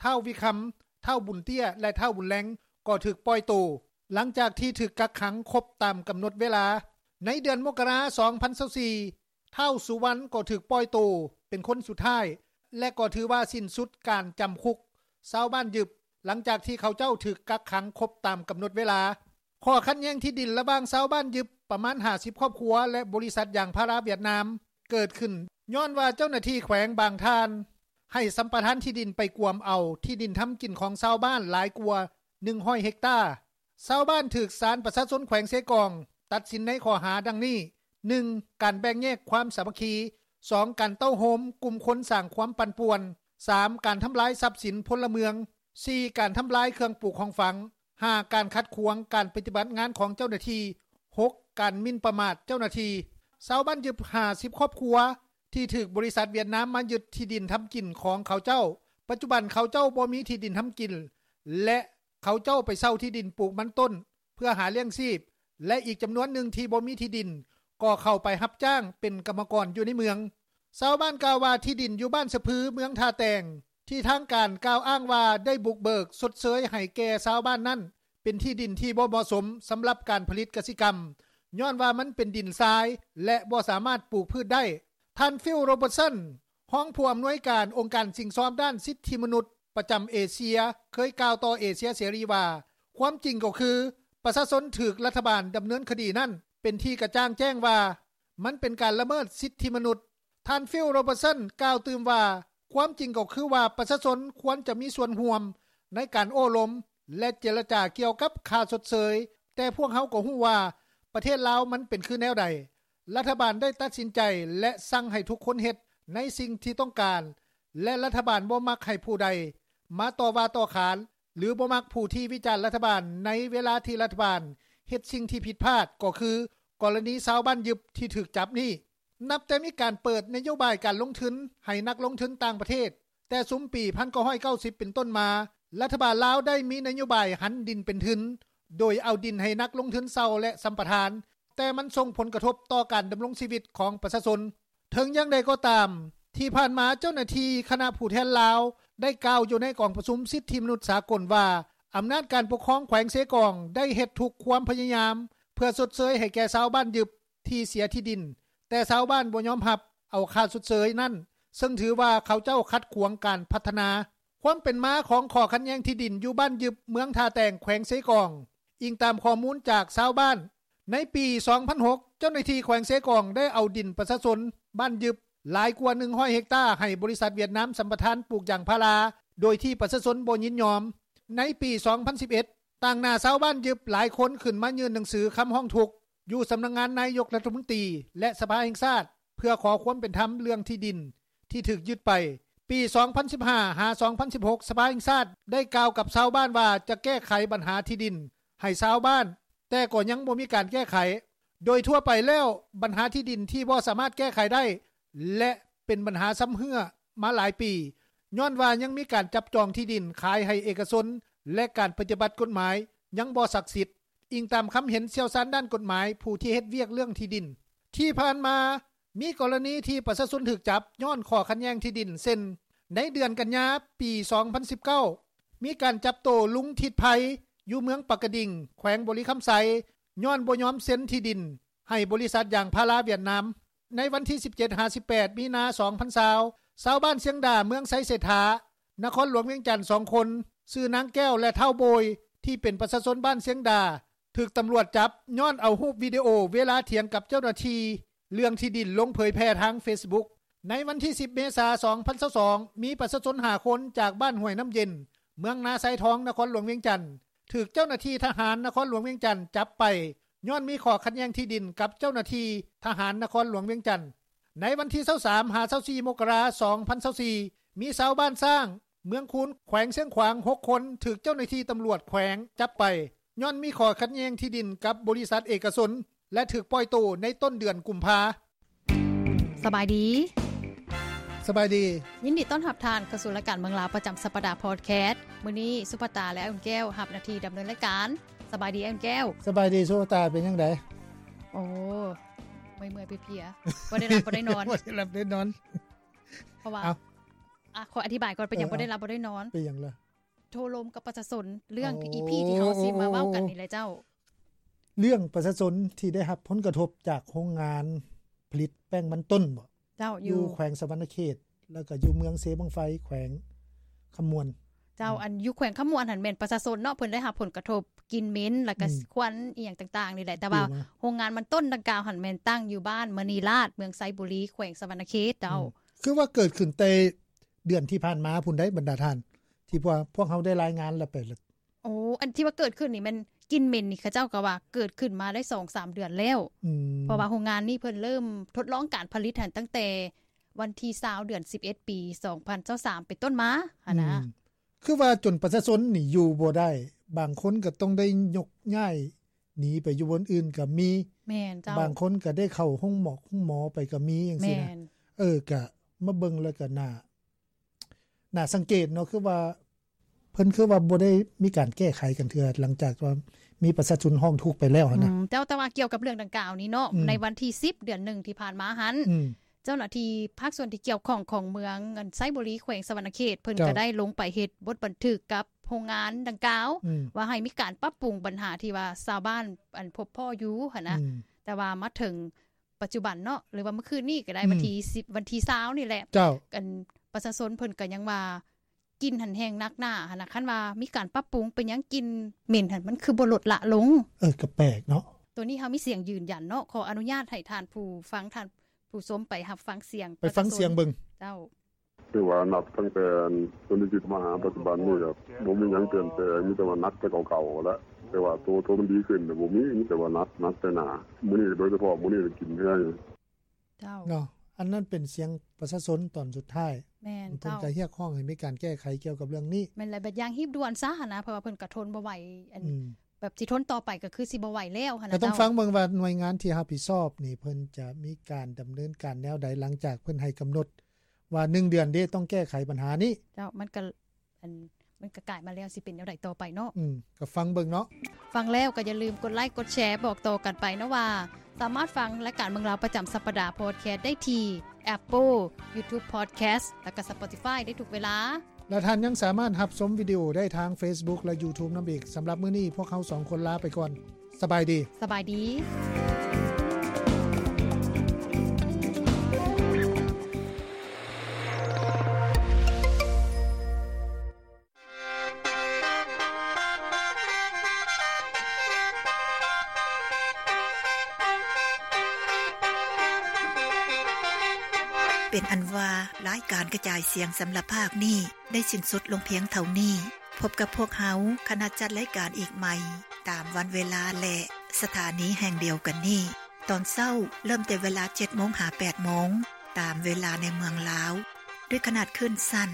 ທ້າວ ວິຄຳ, ທ້າວ ບຸນເຕ້ຍ ແລະ ທ້າວ ບຸນແລງ ກໍຖືກປ່ອຍໂຕ ຫຼັງຈາກທີ່ຖືກກັກຂັງຄົບຕາມກຳນົດເວລາ. ໃນເດືອນມົກກະລາ ສອງພັນຊາວສີ່ ທ້າວ ສຸວັນ ກໍຖືກປ່ອຍໂຕເປັນຄົນສຸດທ້າຍ ແລະ ກໍຖືວ່າສິ້ນສຸດການຈຳຄຸກຊາວບ້ານຍຶບ ຫຼັງຈາກທີ່ເຂົາເຈົ້າຖືກກັກຂັງຄົບຕາມກຳນົດເວລາ. ຂໍ້ຂັດແຍ່ງທີ່ດິນລະຫວ່າງຊາວບ້ານຍຶບປະມານຫ້າສິບຄອບຄົວ ແລະ ບໍລິສັດຢາງພາລາຫວຽດນາມ ເກີດຂຶ້ນຍ້ອນວ່າເຈົ້າໜ້າທີ່ແຂວງບາງທ່ານ ໃຫ້ສຳປະທານທີ່ດິນໄປກວມເອົາທີ່ດິນທຳກິນຂອງຊາວບ້ານຫຼາຍກວ່າໜຶ່ງຮ້ອຍເຮັກຕາ. ຊາວບ້ານຖືກສານປະຊາຊົນແຂວງເຊກອງຕັດສິນໃນຂໍ້ຫາດັ່ງນີ້, ໜຶ່ງ ການແບ່ງແຍກຄວາມສາມັກຄີ, ສອງ ການເຕົ້າໂຮມກຸ່ມຄົນສ້າງຄວາມປັ່ນປ່ວນ, ສາມ ການທຳລາຍຊັບສິນພົນລະເມືອງ, ສີ່ ການທຳລາຍເຄື່ອງປູຂອງຝັງ, ຫ້າ ການຂັດຂວາງການປະຕິບັດງານຂອງເຈົ້າໜ້າທີ່, ຫົກ ການໝິ່ນປະໝາດເຈົ້າໜ້າທີ່. ຊາວບ້ານຢຶບຫ້າສິບຄອບຄົວ ທີ່ຖືກບໍລິສັດຫວຽດນາມມາຍຶດທີ່ດິນທຳກິນຂອງເຂົາເຈົ້າ. ປັດຈຸບັນເຂົາເຈົ້າບໍ່ມີທີ່ດິນທຳກິນ ແລະ ເຂົາເຈົ້າໄປເຊົ່າທີ່ດິນປູກມັນຕົ້ນເພື່ອຫາລ້ຽງຊີບ ແລະ ອີກຈຳນວນໜຶ່ງທີ່ບໍ່ມີທີ່ດິນ ກໍເຂົ້າໄປຮັບຈ້າງເປັນກຳມະກອນຢູ່ໃນເມືອງ. ຊາວບ້ານກ່າວວ່າ ທີ່ດິນຢູ່ບ້ານສະພື ເມືອງທ່າແຕງ ທີ່ທາງການກ່າວອ້າງວ່າໄດ້ບຸກເບີກຊົດເຊີຍໃຫ້ແກ່ຊາວບ້ານນັ້ນ ເປັນທີ່ດິນທີ່ບໍ່ເໝາະສົມສຳລັບການຜະລິດກະສິກຳ ຍ້ອນວ່າມັນເປັນດິນຊາຍ ແລະ ບໍ່ສາມາດປູກພືດໄດ້. ທ່ານ ຟິວ ໂຣເບີດສັນ ຮອງຜູ້ອຳນວຍການອົງການສິ້ງຊອມດ້ານສິດທິມະນຸດປະຈຳເອເຊຍ ເຄີຍກ່າວຕໍ່ເອເຊຍເສລີວ່າ ຄວາມຈິງກໍຄື ປະຊາຊົນຖືກລັດຖະບານດຳເນີນຄະດີນັ້ນ ເປັນທີ່ກະຈ່າງແຈ້ງວ່າ ມັນເປັນການລະເມີດສິດທິມະນຸດ. ທ່ານ ຟິວ ໂຣເບີດສັນ ກ່າວຕື່ມວ່າ ຄວາມຈິງກໍຄືວ່າ ປະຊາຊົນຄວນຈະມີສ່ວນຮ່ວມໃນການໂອ້ລົມ ແລະ ເຈລະຈາກ່ຽວກັບຄ່າຊົດເຊີຍ, ແຕ່ພວກເຮົາກໍຮູ້ວ່າ ປະເທດລາວມັນເປັນຄືແນວໃດ. ລັດຖະບານໄດ້ຕັດສິນໃຈ ແລະ ສັ່ງໃຫ້ທຸກຄົນເຮັດໃນສິ່ງທີ່ຕ້ອງການ ແລະ ລັດຖະບານບໍ່ມັກໃຫ້ຜູ້ໃດມາຕໍ່ວ່າຕໍ່ຂານ ຫຼື ບໍ່ມັກຜູ້ທີ່ວິຈານລັດຖະບານໃນເວລາທີ່ລັດຖະບານເຮັດສິ່ງທີ່ຜິດພາດ ກໍຄືກໍລະນີຊາວບ້ານຍຶບທີ່ຖືກຈັບນີ້. ນັບແຕ່ມີການເປີດນະໂຍບາຍການລົງທຶນໃຫ້ນັກລົງທຶນຕ່າງປະເທດ ແຕ່ຊຸມປີພັນເກົ້າຮ້ອຍເກົ້າສິບເປັນຕົ້ນມາ, ລັດຖະບານລາວໄດ້ມີນະໂຍບາຍຫັນດິນເປັນທຶນ ໂດຍເອົາດິນໃຫ້ນັກລົງທຶນເຊົ່າ ແລະ ສຳປະທານ, ແຕ່ມັນສົ່ງຜົນກະທົບຕໍ່ການດຳລົງຊີວິດຂອງປະຊາຊົນ. ເຖິງຢ່າງໃດກໍຕາມ, ທີ່ຜ່ານມາເຈົ້າໜ້າທີ່ຄະນະຜູ້ແທນລາວໄດ້ກ່າວຢູ່ໃນກອງປະຊຸມສິດທິມະນຸດສາກົນວ່າ ອຳນາດການປົກຄອງແຂວງເຊກອງໄດ້ເຮັດທຸກຄວາມພະຍາຍາມເພື່ອຊົດເຊີຍໃຫ້ແກ່ຊາວບ້ານຍຶບ ທີ່ເສຍທີ່ດິນ, ແຕ່ຊາວບ້ານບໍ່ຍອມຮັບເອົາຄ່າຊົດເຊີຍນັ້ນ, ເຊິ່ງຖືວ່າເຂົາເຈົ້າຂັດຂວາງການພັດທະນາ. ຄວາມເປັນມາຂອງຂໍ້ຂັດແຍ່ງທີ່ດິນຢູ່ບ້ານຍຶບ ເມືອງທ່າແຕງ ແຂວງເຊກອງ. ອີງຕາມຂໍ້ມູນຈາກຊາວບ້ານ, ໃນປີສອງພັນຫົກ ເຈົ້າໜ້າທີ່ແຂວງເຊກອງໄດ້ເອົາດິນປະຊາຊົນບ້ານຍຶບຫຼາຍກວ່າໜຶ່ງຮ້ອຍເຮັກຕາໃຫ້ບໍລິສັດຫວຽດນາມສຳປະທານປູກຢາງພາລາ ໂດຍທີ່ປະຊາຊົນບໍ່ຍິນຍອມ. ໃນປີສອງພັນສິບເອັດ ຕາງໜ້າຊາວບ້ານຍຶບຫຼາຍຄົນຂຶ້ນມາຍື່ນໜັງສືຄຳຮ້ອງທຸກ ຢູ່ສຳນັກງານນາຍົກລັດຖະມົນຕີ ແລະ ສະພາແຫ່ງຊາດ ເພື່ອຂໍຄວາມເປັນທຳເລື່ອງທີ່ດິນທີ່ຖືກຍຶດໄປ. ປີສອງພັນສິບຫ້າ ຫາ ສອງພັນສິບຫົກ ສະພາແຫ່ງຊາດໄດ້ກ່າວກັບຊາວບ້ານວ່າຈະແກ້ໄຂບັນຫາທີ່ດິນໃຫ້ຊາວບ້ານ, ແຕ່ກໍຍັງບໍ່ມີການແກ້ໄຂ. ໂດຍທົ່ວໄປແລ້ວ, ບັນຫາທີ່ດິນທີ່ບໍ່ສາມາດແກ້ໄຂໄດ້ ແລະ ເປັນບັນຫາຊຳເຮື້ອມາຫຼາຍປີ, ຍ້ອນວ່າຍັງມີການຈັບຈອງທີ່ດິນຂາຍໃຫ້ເອກະຊົນ ແລະ ການປະຕິບັດກົດໝາຍຍັງບໍ່ສັກສິດ. ອີງຕາມຄຳເຫັນຊ່ຽວຊານດ້ານກົດໝາຍ ຜູ້ທີ່ເຮັດວຽກເລື່ອງທີ່ດິນ. ທີ່ຜ່ານມາ ມີກໍລະນີທີ່ປະຊາຊົນຖືກຈັບຍ້ອນຂໍ້ຂັດແຍ່ງທີ່ດິນ ເຊັ່ນ ໃນເດືອນກັນຍາ ປີສອງພັນສິບເກົ້າ ມີການຈັບໂຕລຸງທິດໄພ ຢູ່ເມືອງປາກກະດິງ ແຂວງບໍລິຄຳໄຊ ຍ້ອນບໍ່ຍອມເຊັນທີ່ດິນໃຫ້ບໍລິສັດຢາງພາລາຫວຽດນາມ. ໃນວັນທີສິບເຈັດ ຫາ ສິບແປດ ມີນາ ສອງພັນຊາວ ຊາວບ້ານຊຽງດາ ເມືອງໄຊເສດຖາ ນະຄອນຫຼວງວຽງຈັນ ສອງຄົນ ຊື່ນາງແກ້ວ ແລະ ທ້າວໂບຍ ທີ່ເປັນປະຊາຊົນບ້ານຊຽງດາ ຖືກຕຳຫຼວດຈັບຍ້ອນເອົາຮູບວິດີໂອເວລາຖຽງກັບເຈົ້າໜ້າທີ່ເລື່ອງທີ່ດິນລົງເຜີຍແຜ່ທາງເຟສບຸກ. ໃນວັນທີສິບ ເມສາ ສອງພັນຊາວສອງ ມີປະຊາຊົນຫ້າຄົນຈາກບ້ານຫ້ວຍນ້ຳເຢັນ ເມືອງນາຊາຍທອງ ນະຄອນຫຼວງວຽງຈັນ ຖືກເຈົ້າໜ້າທີ່ທະຫານນະຄອນຫຼວງວຽງຈັນຈັບໄປ ຍ້ອນມີຂໍ້ຂັດແຍ່ງທີ່ດິນກັບເຈົ້າໜ້າທີ່ທະຫານນະຄອນຫຼວງວຽງຈັນ. ໃນວັນທີຊາວສາມ ຫາ ຊາວສີ່ ມົກກະລາ ສອງພັນຊາວສີ່ ມີຊາວບ້ານຊ້າງ ເມືອງຄູນ ແຂວງຊຽງຂວາງ ຫົກຄົນ ຖືກເຈົ້າໜ້າທີ່ຕຳຫຼວດແຂວງຈັບໄປ ຍ້ອນມີຂໍ້ຂັດແຍ່ງທີ່ດິນກັບບໍລິສັດເອກະຊົນ ແລະ ຖືກປ່ອຍໂຕໃນຕົ້ນເດືອນກຸມພາ. ສະບາຍດີ. ສະບາຍດີ. ຍິນດີຕ້ອນຮັບທ່ານເຂົ້າສູ່ລາຍການເມືອງລາວປະຈຳສັບປະດາພອດແຄສ. ມື້ນີ້ສຸພາຕາ ແລະ ອ້າຍອຸ່ນແກ້ວຮັບໜ້າທີ່ດຳເນີນລາຍການ. ສະບາຍດີ ອ້າຍອຸ່ນແກ້ວ. ສະບາຍດີ ສຸພາຕາ ເປັນຈັ່ງໃດ? ໂອ້ ເມື່ອຍໆເພຍໆ ບໍ່ໄດ້ຫຼັບບໍ່ໄດ້ນອນ. ບໍ່ໄດ້ຫຼັບໄດ້ນອນ. ເພາະວ່າ ເອົ້າ ອ່ະ ຂໍອະທິບາຍກ່ອນ ເປັນຫຍັງ ເອີ ບໍ່ໄດ້ຫຼັບບໍ່ໄດ້ນອນ. ເປັນຫຍັງລະ? ໂທລົມກັບປະຊາຊົນ ເລື່ອງ ໂອ້ ອີ ພີ ທີ່ເຮົາຊິມາເວົ້າກັນນີ້ແຫຼະເຈົ້າ. ເລື່ອງປະຊາຊົນທີ່ໄດ້ຮັບຜົນກະທົບຈາກໂຮງງານຜະລິດແປ້ງມັນຕົ້ນບໍ? ເຈົ້າ ຢູ່ ຢູ່ແຂວງສະຫວັນນະເຂດ ແລ້ວກໍຢູ່ເມືອງເຊບັ້ງໄຟ ແຂວງຄຳມ່ວນ. ເຈົ້າ ອືມ ອັນຢູ່ແຂວງຄຳມ່ວນຫັ້ນແມ່ນປະຊາຊົນເນາະ ເພິ່ນໄດ້ຮັບຜົນກະທົບ ກິ່ນເໝັນ ແລ້ວກໍ ອືມ ຄວັນອີ່ຫຍັງຕ່າງໆນີ້ແຫຼະ ແຕ່ວ່າ ອືມ ໂຮງງານມັນຕົ້ນດັ່ງກ່າວຫັ້ນແມ່ນຕັ້ງຢູ່ບ້ານມະນີລາດ ເມືອງໄຊບູລີ ແຂວງສະຫວັນນະເຂດເຈົ້າ. ອືມ ຄືວ່າເກີດຂຶ້ນແຕ່ເດືອນທີ່ຜ່ານມາພຸ້ນໃດ໋ ບັນດາທ່ານ ທີ່ພວກ ພວກເຮົາໄດ້ລາຍງານແລ້ວໄປ. ໂອ້ ອັນທີ່ວ່າເກີດຂຶ້ນນີ້ແມ່ນກິ່ນເໝັນນີ້ ເຂົາເຈົ້າກໍວ່າເກີດຂຶ້ນມາໄດ້ສອງສາມເດືອນແລ້ວ. ອືມ ເພາະວ່າໂຮງງານນີ້ເພິ່ນເລີ່ມທົດລອງການຜະລິດຫັ້ນຕັ້ງແຕ່ວັນທີຊາວ ເດືອນສິບເອັດ ປີສອງພັນຊາວສາມ ເປັນຕົ້ນມາຫັ້ນນະ. ອືມ ຄືວ່າຈົນປະຊາຊົນນີ້ຢູ່ບໍ່ໄດ້ ບາງຄົນກໍຕ້ອງໄດ້ຍົກຍ້າຍໜີໄປຢູ່ບ່ອນອື່ນກໍມີ. ແມ່ນເຈົ້າ ບາງຄົນກໍໄດ້ເຂົ້າໂຮງໝໍໂຮງໝໍໄປກໍມີຈັ່ງຊີ້ນະ ແມ່ນ ເອີ ກໍມາເບິ່ງແລ້ວກໍໜ້າ ໜ້າສັງເກດເນາະ ຄືວ່າ ເພິ່ນຄືວ່າບໍ່ໄດ້ມີການແກ້ໄຂກັນເທື່ອ ຫຼັງຈາກວ່າມີປະຊາຊົນຮ້ອງທຸກໄປແລ້ວຫັ້ນນະ ອືມ ເຈົ້າ ແຕ່ວ່າກ່ຽວກັບເລື່ອງດັ່ງກ່າວນີ້ເນາະ ອືມ ໃນວັນທີສິບ ເດືອນໜຶ່ງທີ່ຜ່ານມາຫັ້ນ ອືມ ເຈົ້າໜ້າທີ່ພາກສ່ວນທີ່ກ່ຽວຂ້ອງຂອງເມືອງໄຊບູລີ ແຂວງສະຫວັນນະເຂດ ເພິ່ນ ເຈົ້າ ກໍໄດ້ລົງໄປເຮັດບົດບັນທຶກກັບໂຮງງານດັ່ງກ່າວ ອືມ ວ່າໃຫ້ມີການປັບປຸງບັນຫາທີ່ວ່າຊາວບ້ານ ອັນ ພົບພໍ້ຢູ່ຫັ້ນນະ ອືມ ແຕ່ວ່າມາເຖິງປັດຈຸບັນເນາະ ຫຼືວ່າມື້ຄືນນີ້ກໍໄດ້ ອືມ ວັນທີສິບ ວັນທີຊາວນີ້ແຫຼະ ເຈົ້າ ອັນ ປະຊາຊົນເພິ່ນກໍຍັງວ່າ ກິ່ນຫັ້ນແຮງໜັກໜ້າຫັ້ນນະ ຄັນວ່າມີການປັບປຸງ ເປັນຫຍັງກິ່ນເໝັນຫັ້ນ ມັນຄືບໍ່ລົດລະລົງ? ເອີ ກໍແປກເນາະ ໂຕນີ້ເຮົາມີສຽງຢືນຢັນເນາະ ຂໍອະນຸຍາດໃຫ້ທ່ານຜູ້ຟັງ ທ່ານຜູ້ຊົມໄປຮັບຟັງສຽງ ໄປຟັງສຽງເບິ່ງ ເຈົ້າ ຖືວ່ານັບຕັ້ງແຕ່ ອັນ ຕົວນີ້ທີ່ມາຫາປັດຈຸບັນນີ້ ກໍບໍ່ມີຫຍັງປ່ຽນແປງ ມີແຕ່ວ່າໜັກແຕ່ເກົ່າໆຫັ້ນແຫຼະ ແຕ່ວ່າໂຕ ໂຕມັນດີຂຶ້ນນະ ບໍ່ມີ ມີແຕ່ວ່າໜັກ ໜັກແຕ່ໜ້າ ມື້ນີ້ໂດຍສະເພາະ ມື້ນີ້ກິ່ນແຮງ ເຈົ້າ ເນາະ ອັນນັ້ນເປັນສຽງປະຊາຊົນຕອນສຸດທ້າຍ ແມ່ນ ເພິ່ນ ເຈົ້າ ກໍຮຽກຮ້ອງໃຫ້ມີການແກ້ໄຂກ່ຽວກັບເລື່ອງນີ້ ແມ່ນແຫຼະ ແບບຢ່າງຮີບດ່ວນຊະຫັ້ນນະ ເພາະວ່າເພິ່ນກໍທົນບໍ່ໄຫວ ອັນ ອືມ ແບບຊິທົນຕໍ່ໄປກໍຄືຊິບໍ່ໄຫວແລ້ວຫັ້ນນະ ກໍຕ້ອງ ເຈົ້າ ຟັງເບິ່ງວ່າໜ່ວຍງານທີ່ຮັບຜິດຊອບນີ້ ເພິ່ນຈະມີການດຳເນີນການແນວໃດ ຫຼັງຈາກເພິ່ນໃຫ້ກຳນົດວ່າໜຶ່ງເດືອນເດ້ ຕ້ອງແກ້ໄຂບັນຫານີ້ ເຈົ້າ ມັນກໍ ອັນ ມັນກໍກາຍມາແລ້ວ ຊິເປັນແນວໃດຕໍ່ໄປເນາະ ອືມ ກໍຟັງເບິ່ງເນາະ ຟັງແລ້ວກໍຢ່າລືມກົດໄລກົດແຊ ບອກຕໍ່ກັນໄປເນາະວ່າ ສາມາດຟັງລາຍການເມືອງລາວປະຈຳສັບປະດາພອດແຄສໄດ້ທີ່ Apple YouTube Podcast ແລ້ວກໍ Spotify ໄດ້ທຸກເວລາ ແລະ ທ່ານຍັງສາມາດຮັບຊົມວິດີໂອໄດ້ທາງ Facebook ແລະ YouTube ນຳອີກ. ສຳລັບມື້ນີ້ ພວກເຮົາສອງຄົນລາໄປກ່ອນ. ສະບາຍດີ. ສະບາຍດີ. ເປັນອັນວ່າ ລາຍການກະຈາຍສຽງສຳລັບພາກນີ້ ໄດ້ສິ້ນສຸດລົງພຽງເທົ່ານີ້. ພົບກັບພວກເຮົາ ຄະນະຈັດລາຍການອີກໃໝ່ ຕາມວັນເວລາ ແລະ ສະຖານີແຫ່ງດຽວກັນນີ້. ຕອນເຊົ້າເລີ່ມແຕ່ເວລາເຈັດໂມງຫາແປດໂມງ ຕາມເວລາໃນເມືອງລາວ ດ້ວຍຂະໜາດຄື້ນສັ້ນ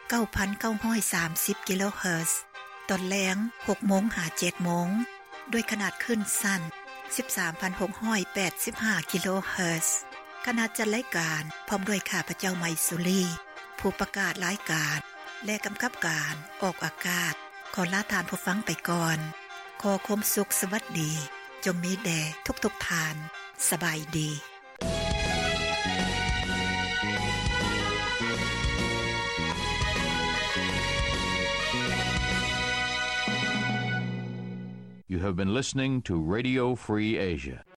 ເກົ້າພັນເກົ້າຮ້ອຍສາມສິບກິໂລເຮີດ. ຕອນແລງ ຫົກໂມງຫາເຈັດໂມງ ດ້ວຍຂະໜາດຄື້ນສັ້ນ ສິບສາມພັນຫົກຮ້ອຍແປດສິບຫ້າກິໂລເຮີດ. ຄະນະຈັດລາຍການ ພ້ອມດ້ວຍຂ້າພະເຈົ້າ ໄມສຸລີ ຜູ້ປະກາດລາຍການ ແລະ ກຳກັບການອອກອາກາດ ຂໍລາທ່ານຜູ້ຟັງໄປກ່ອນ. ຂໍຄວາມສຸກສະຫວັດດີ ຈົ່ງມີແດ່ທຸກໆທ່ານ. ສະບາຍດີ. You have been listening to Radio Free Asia.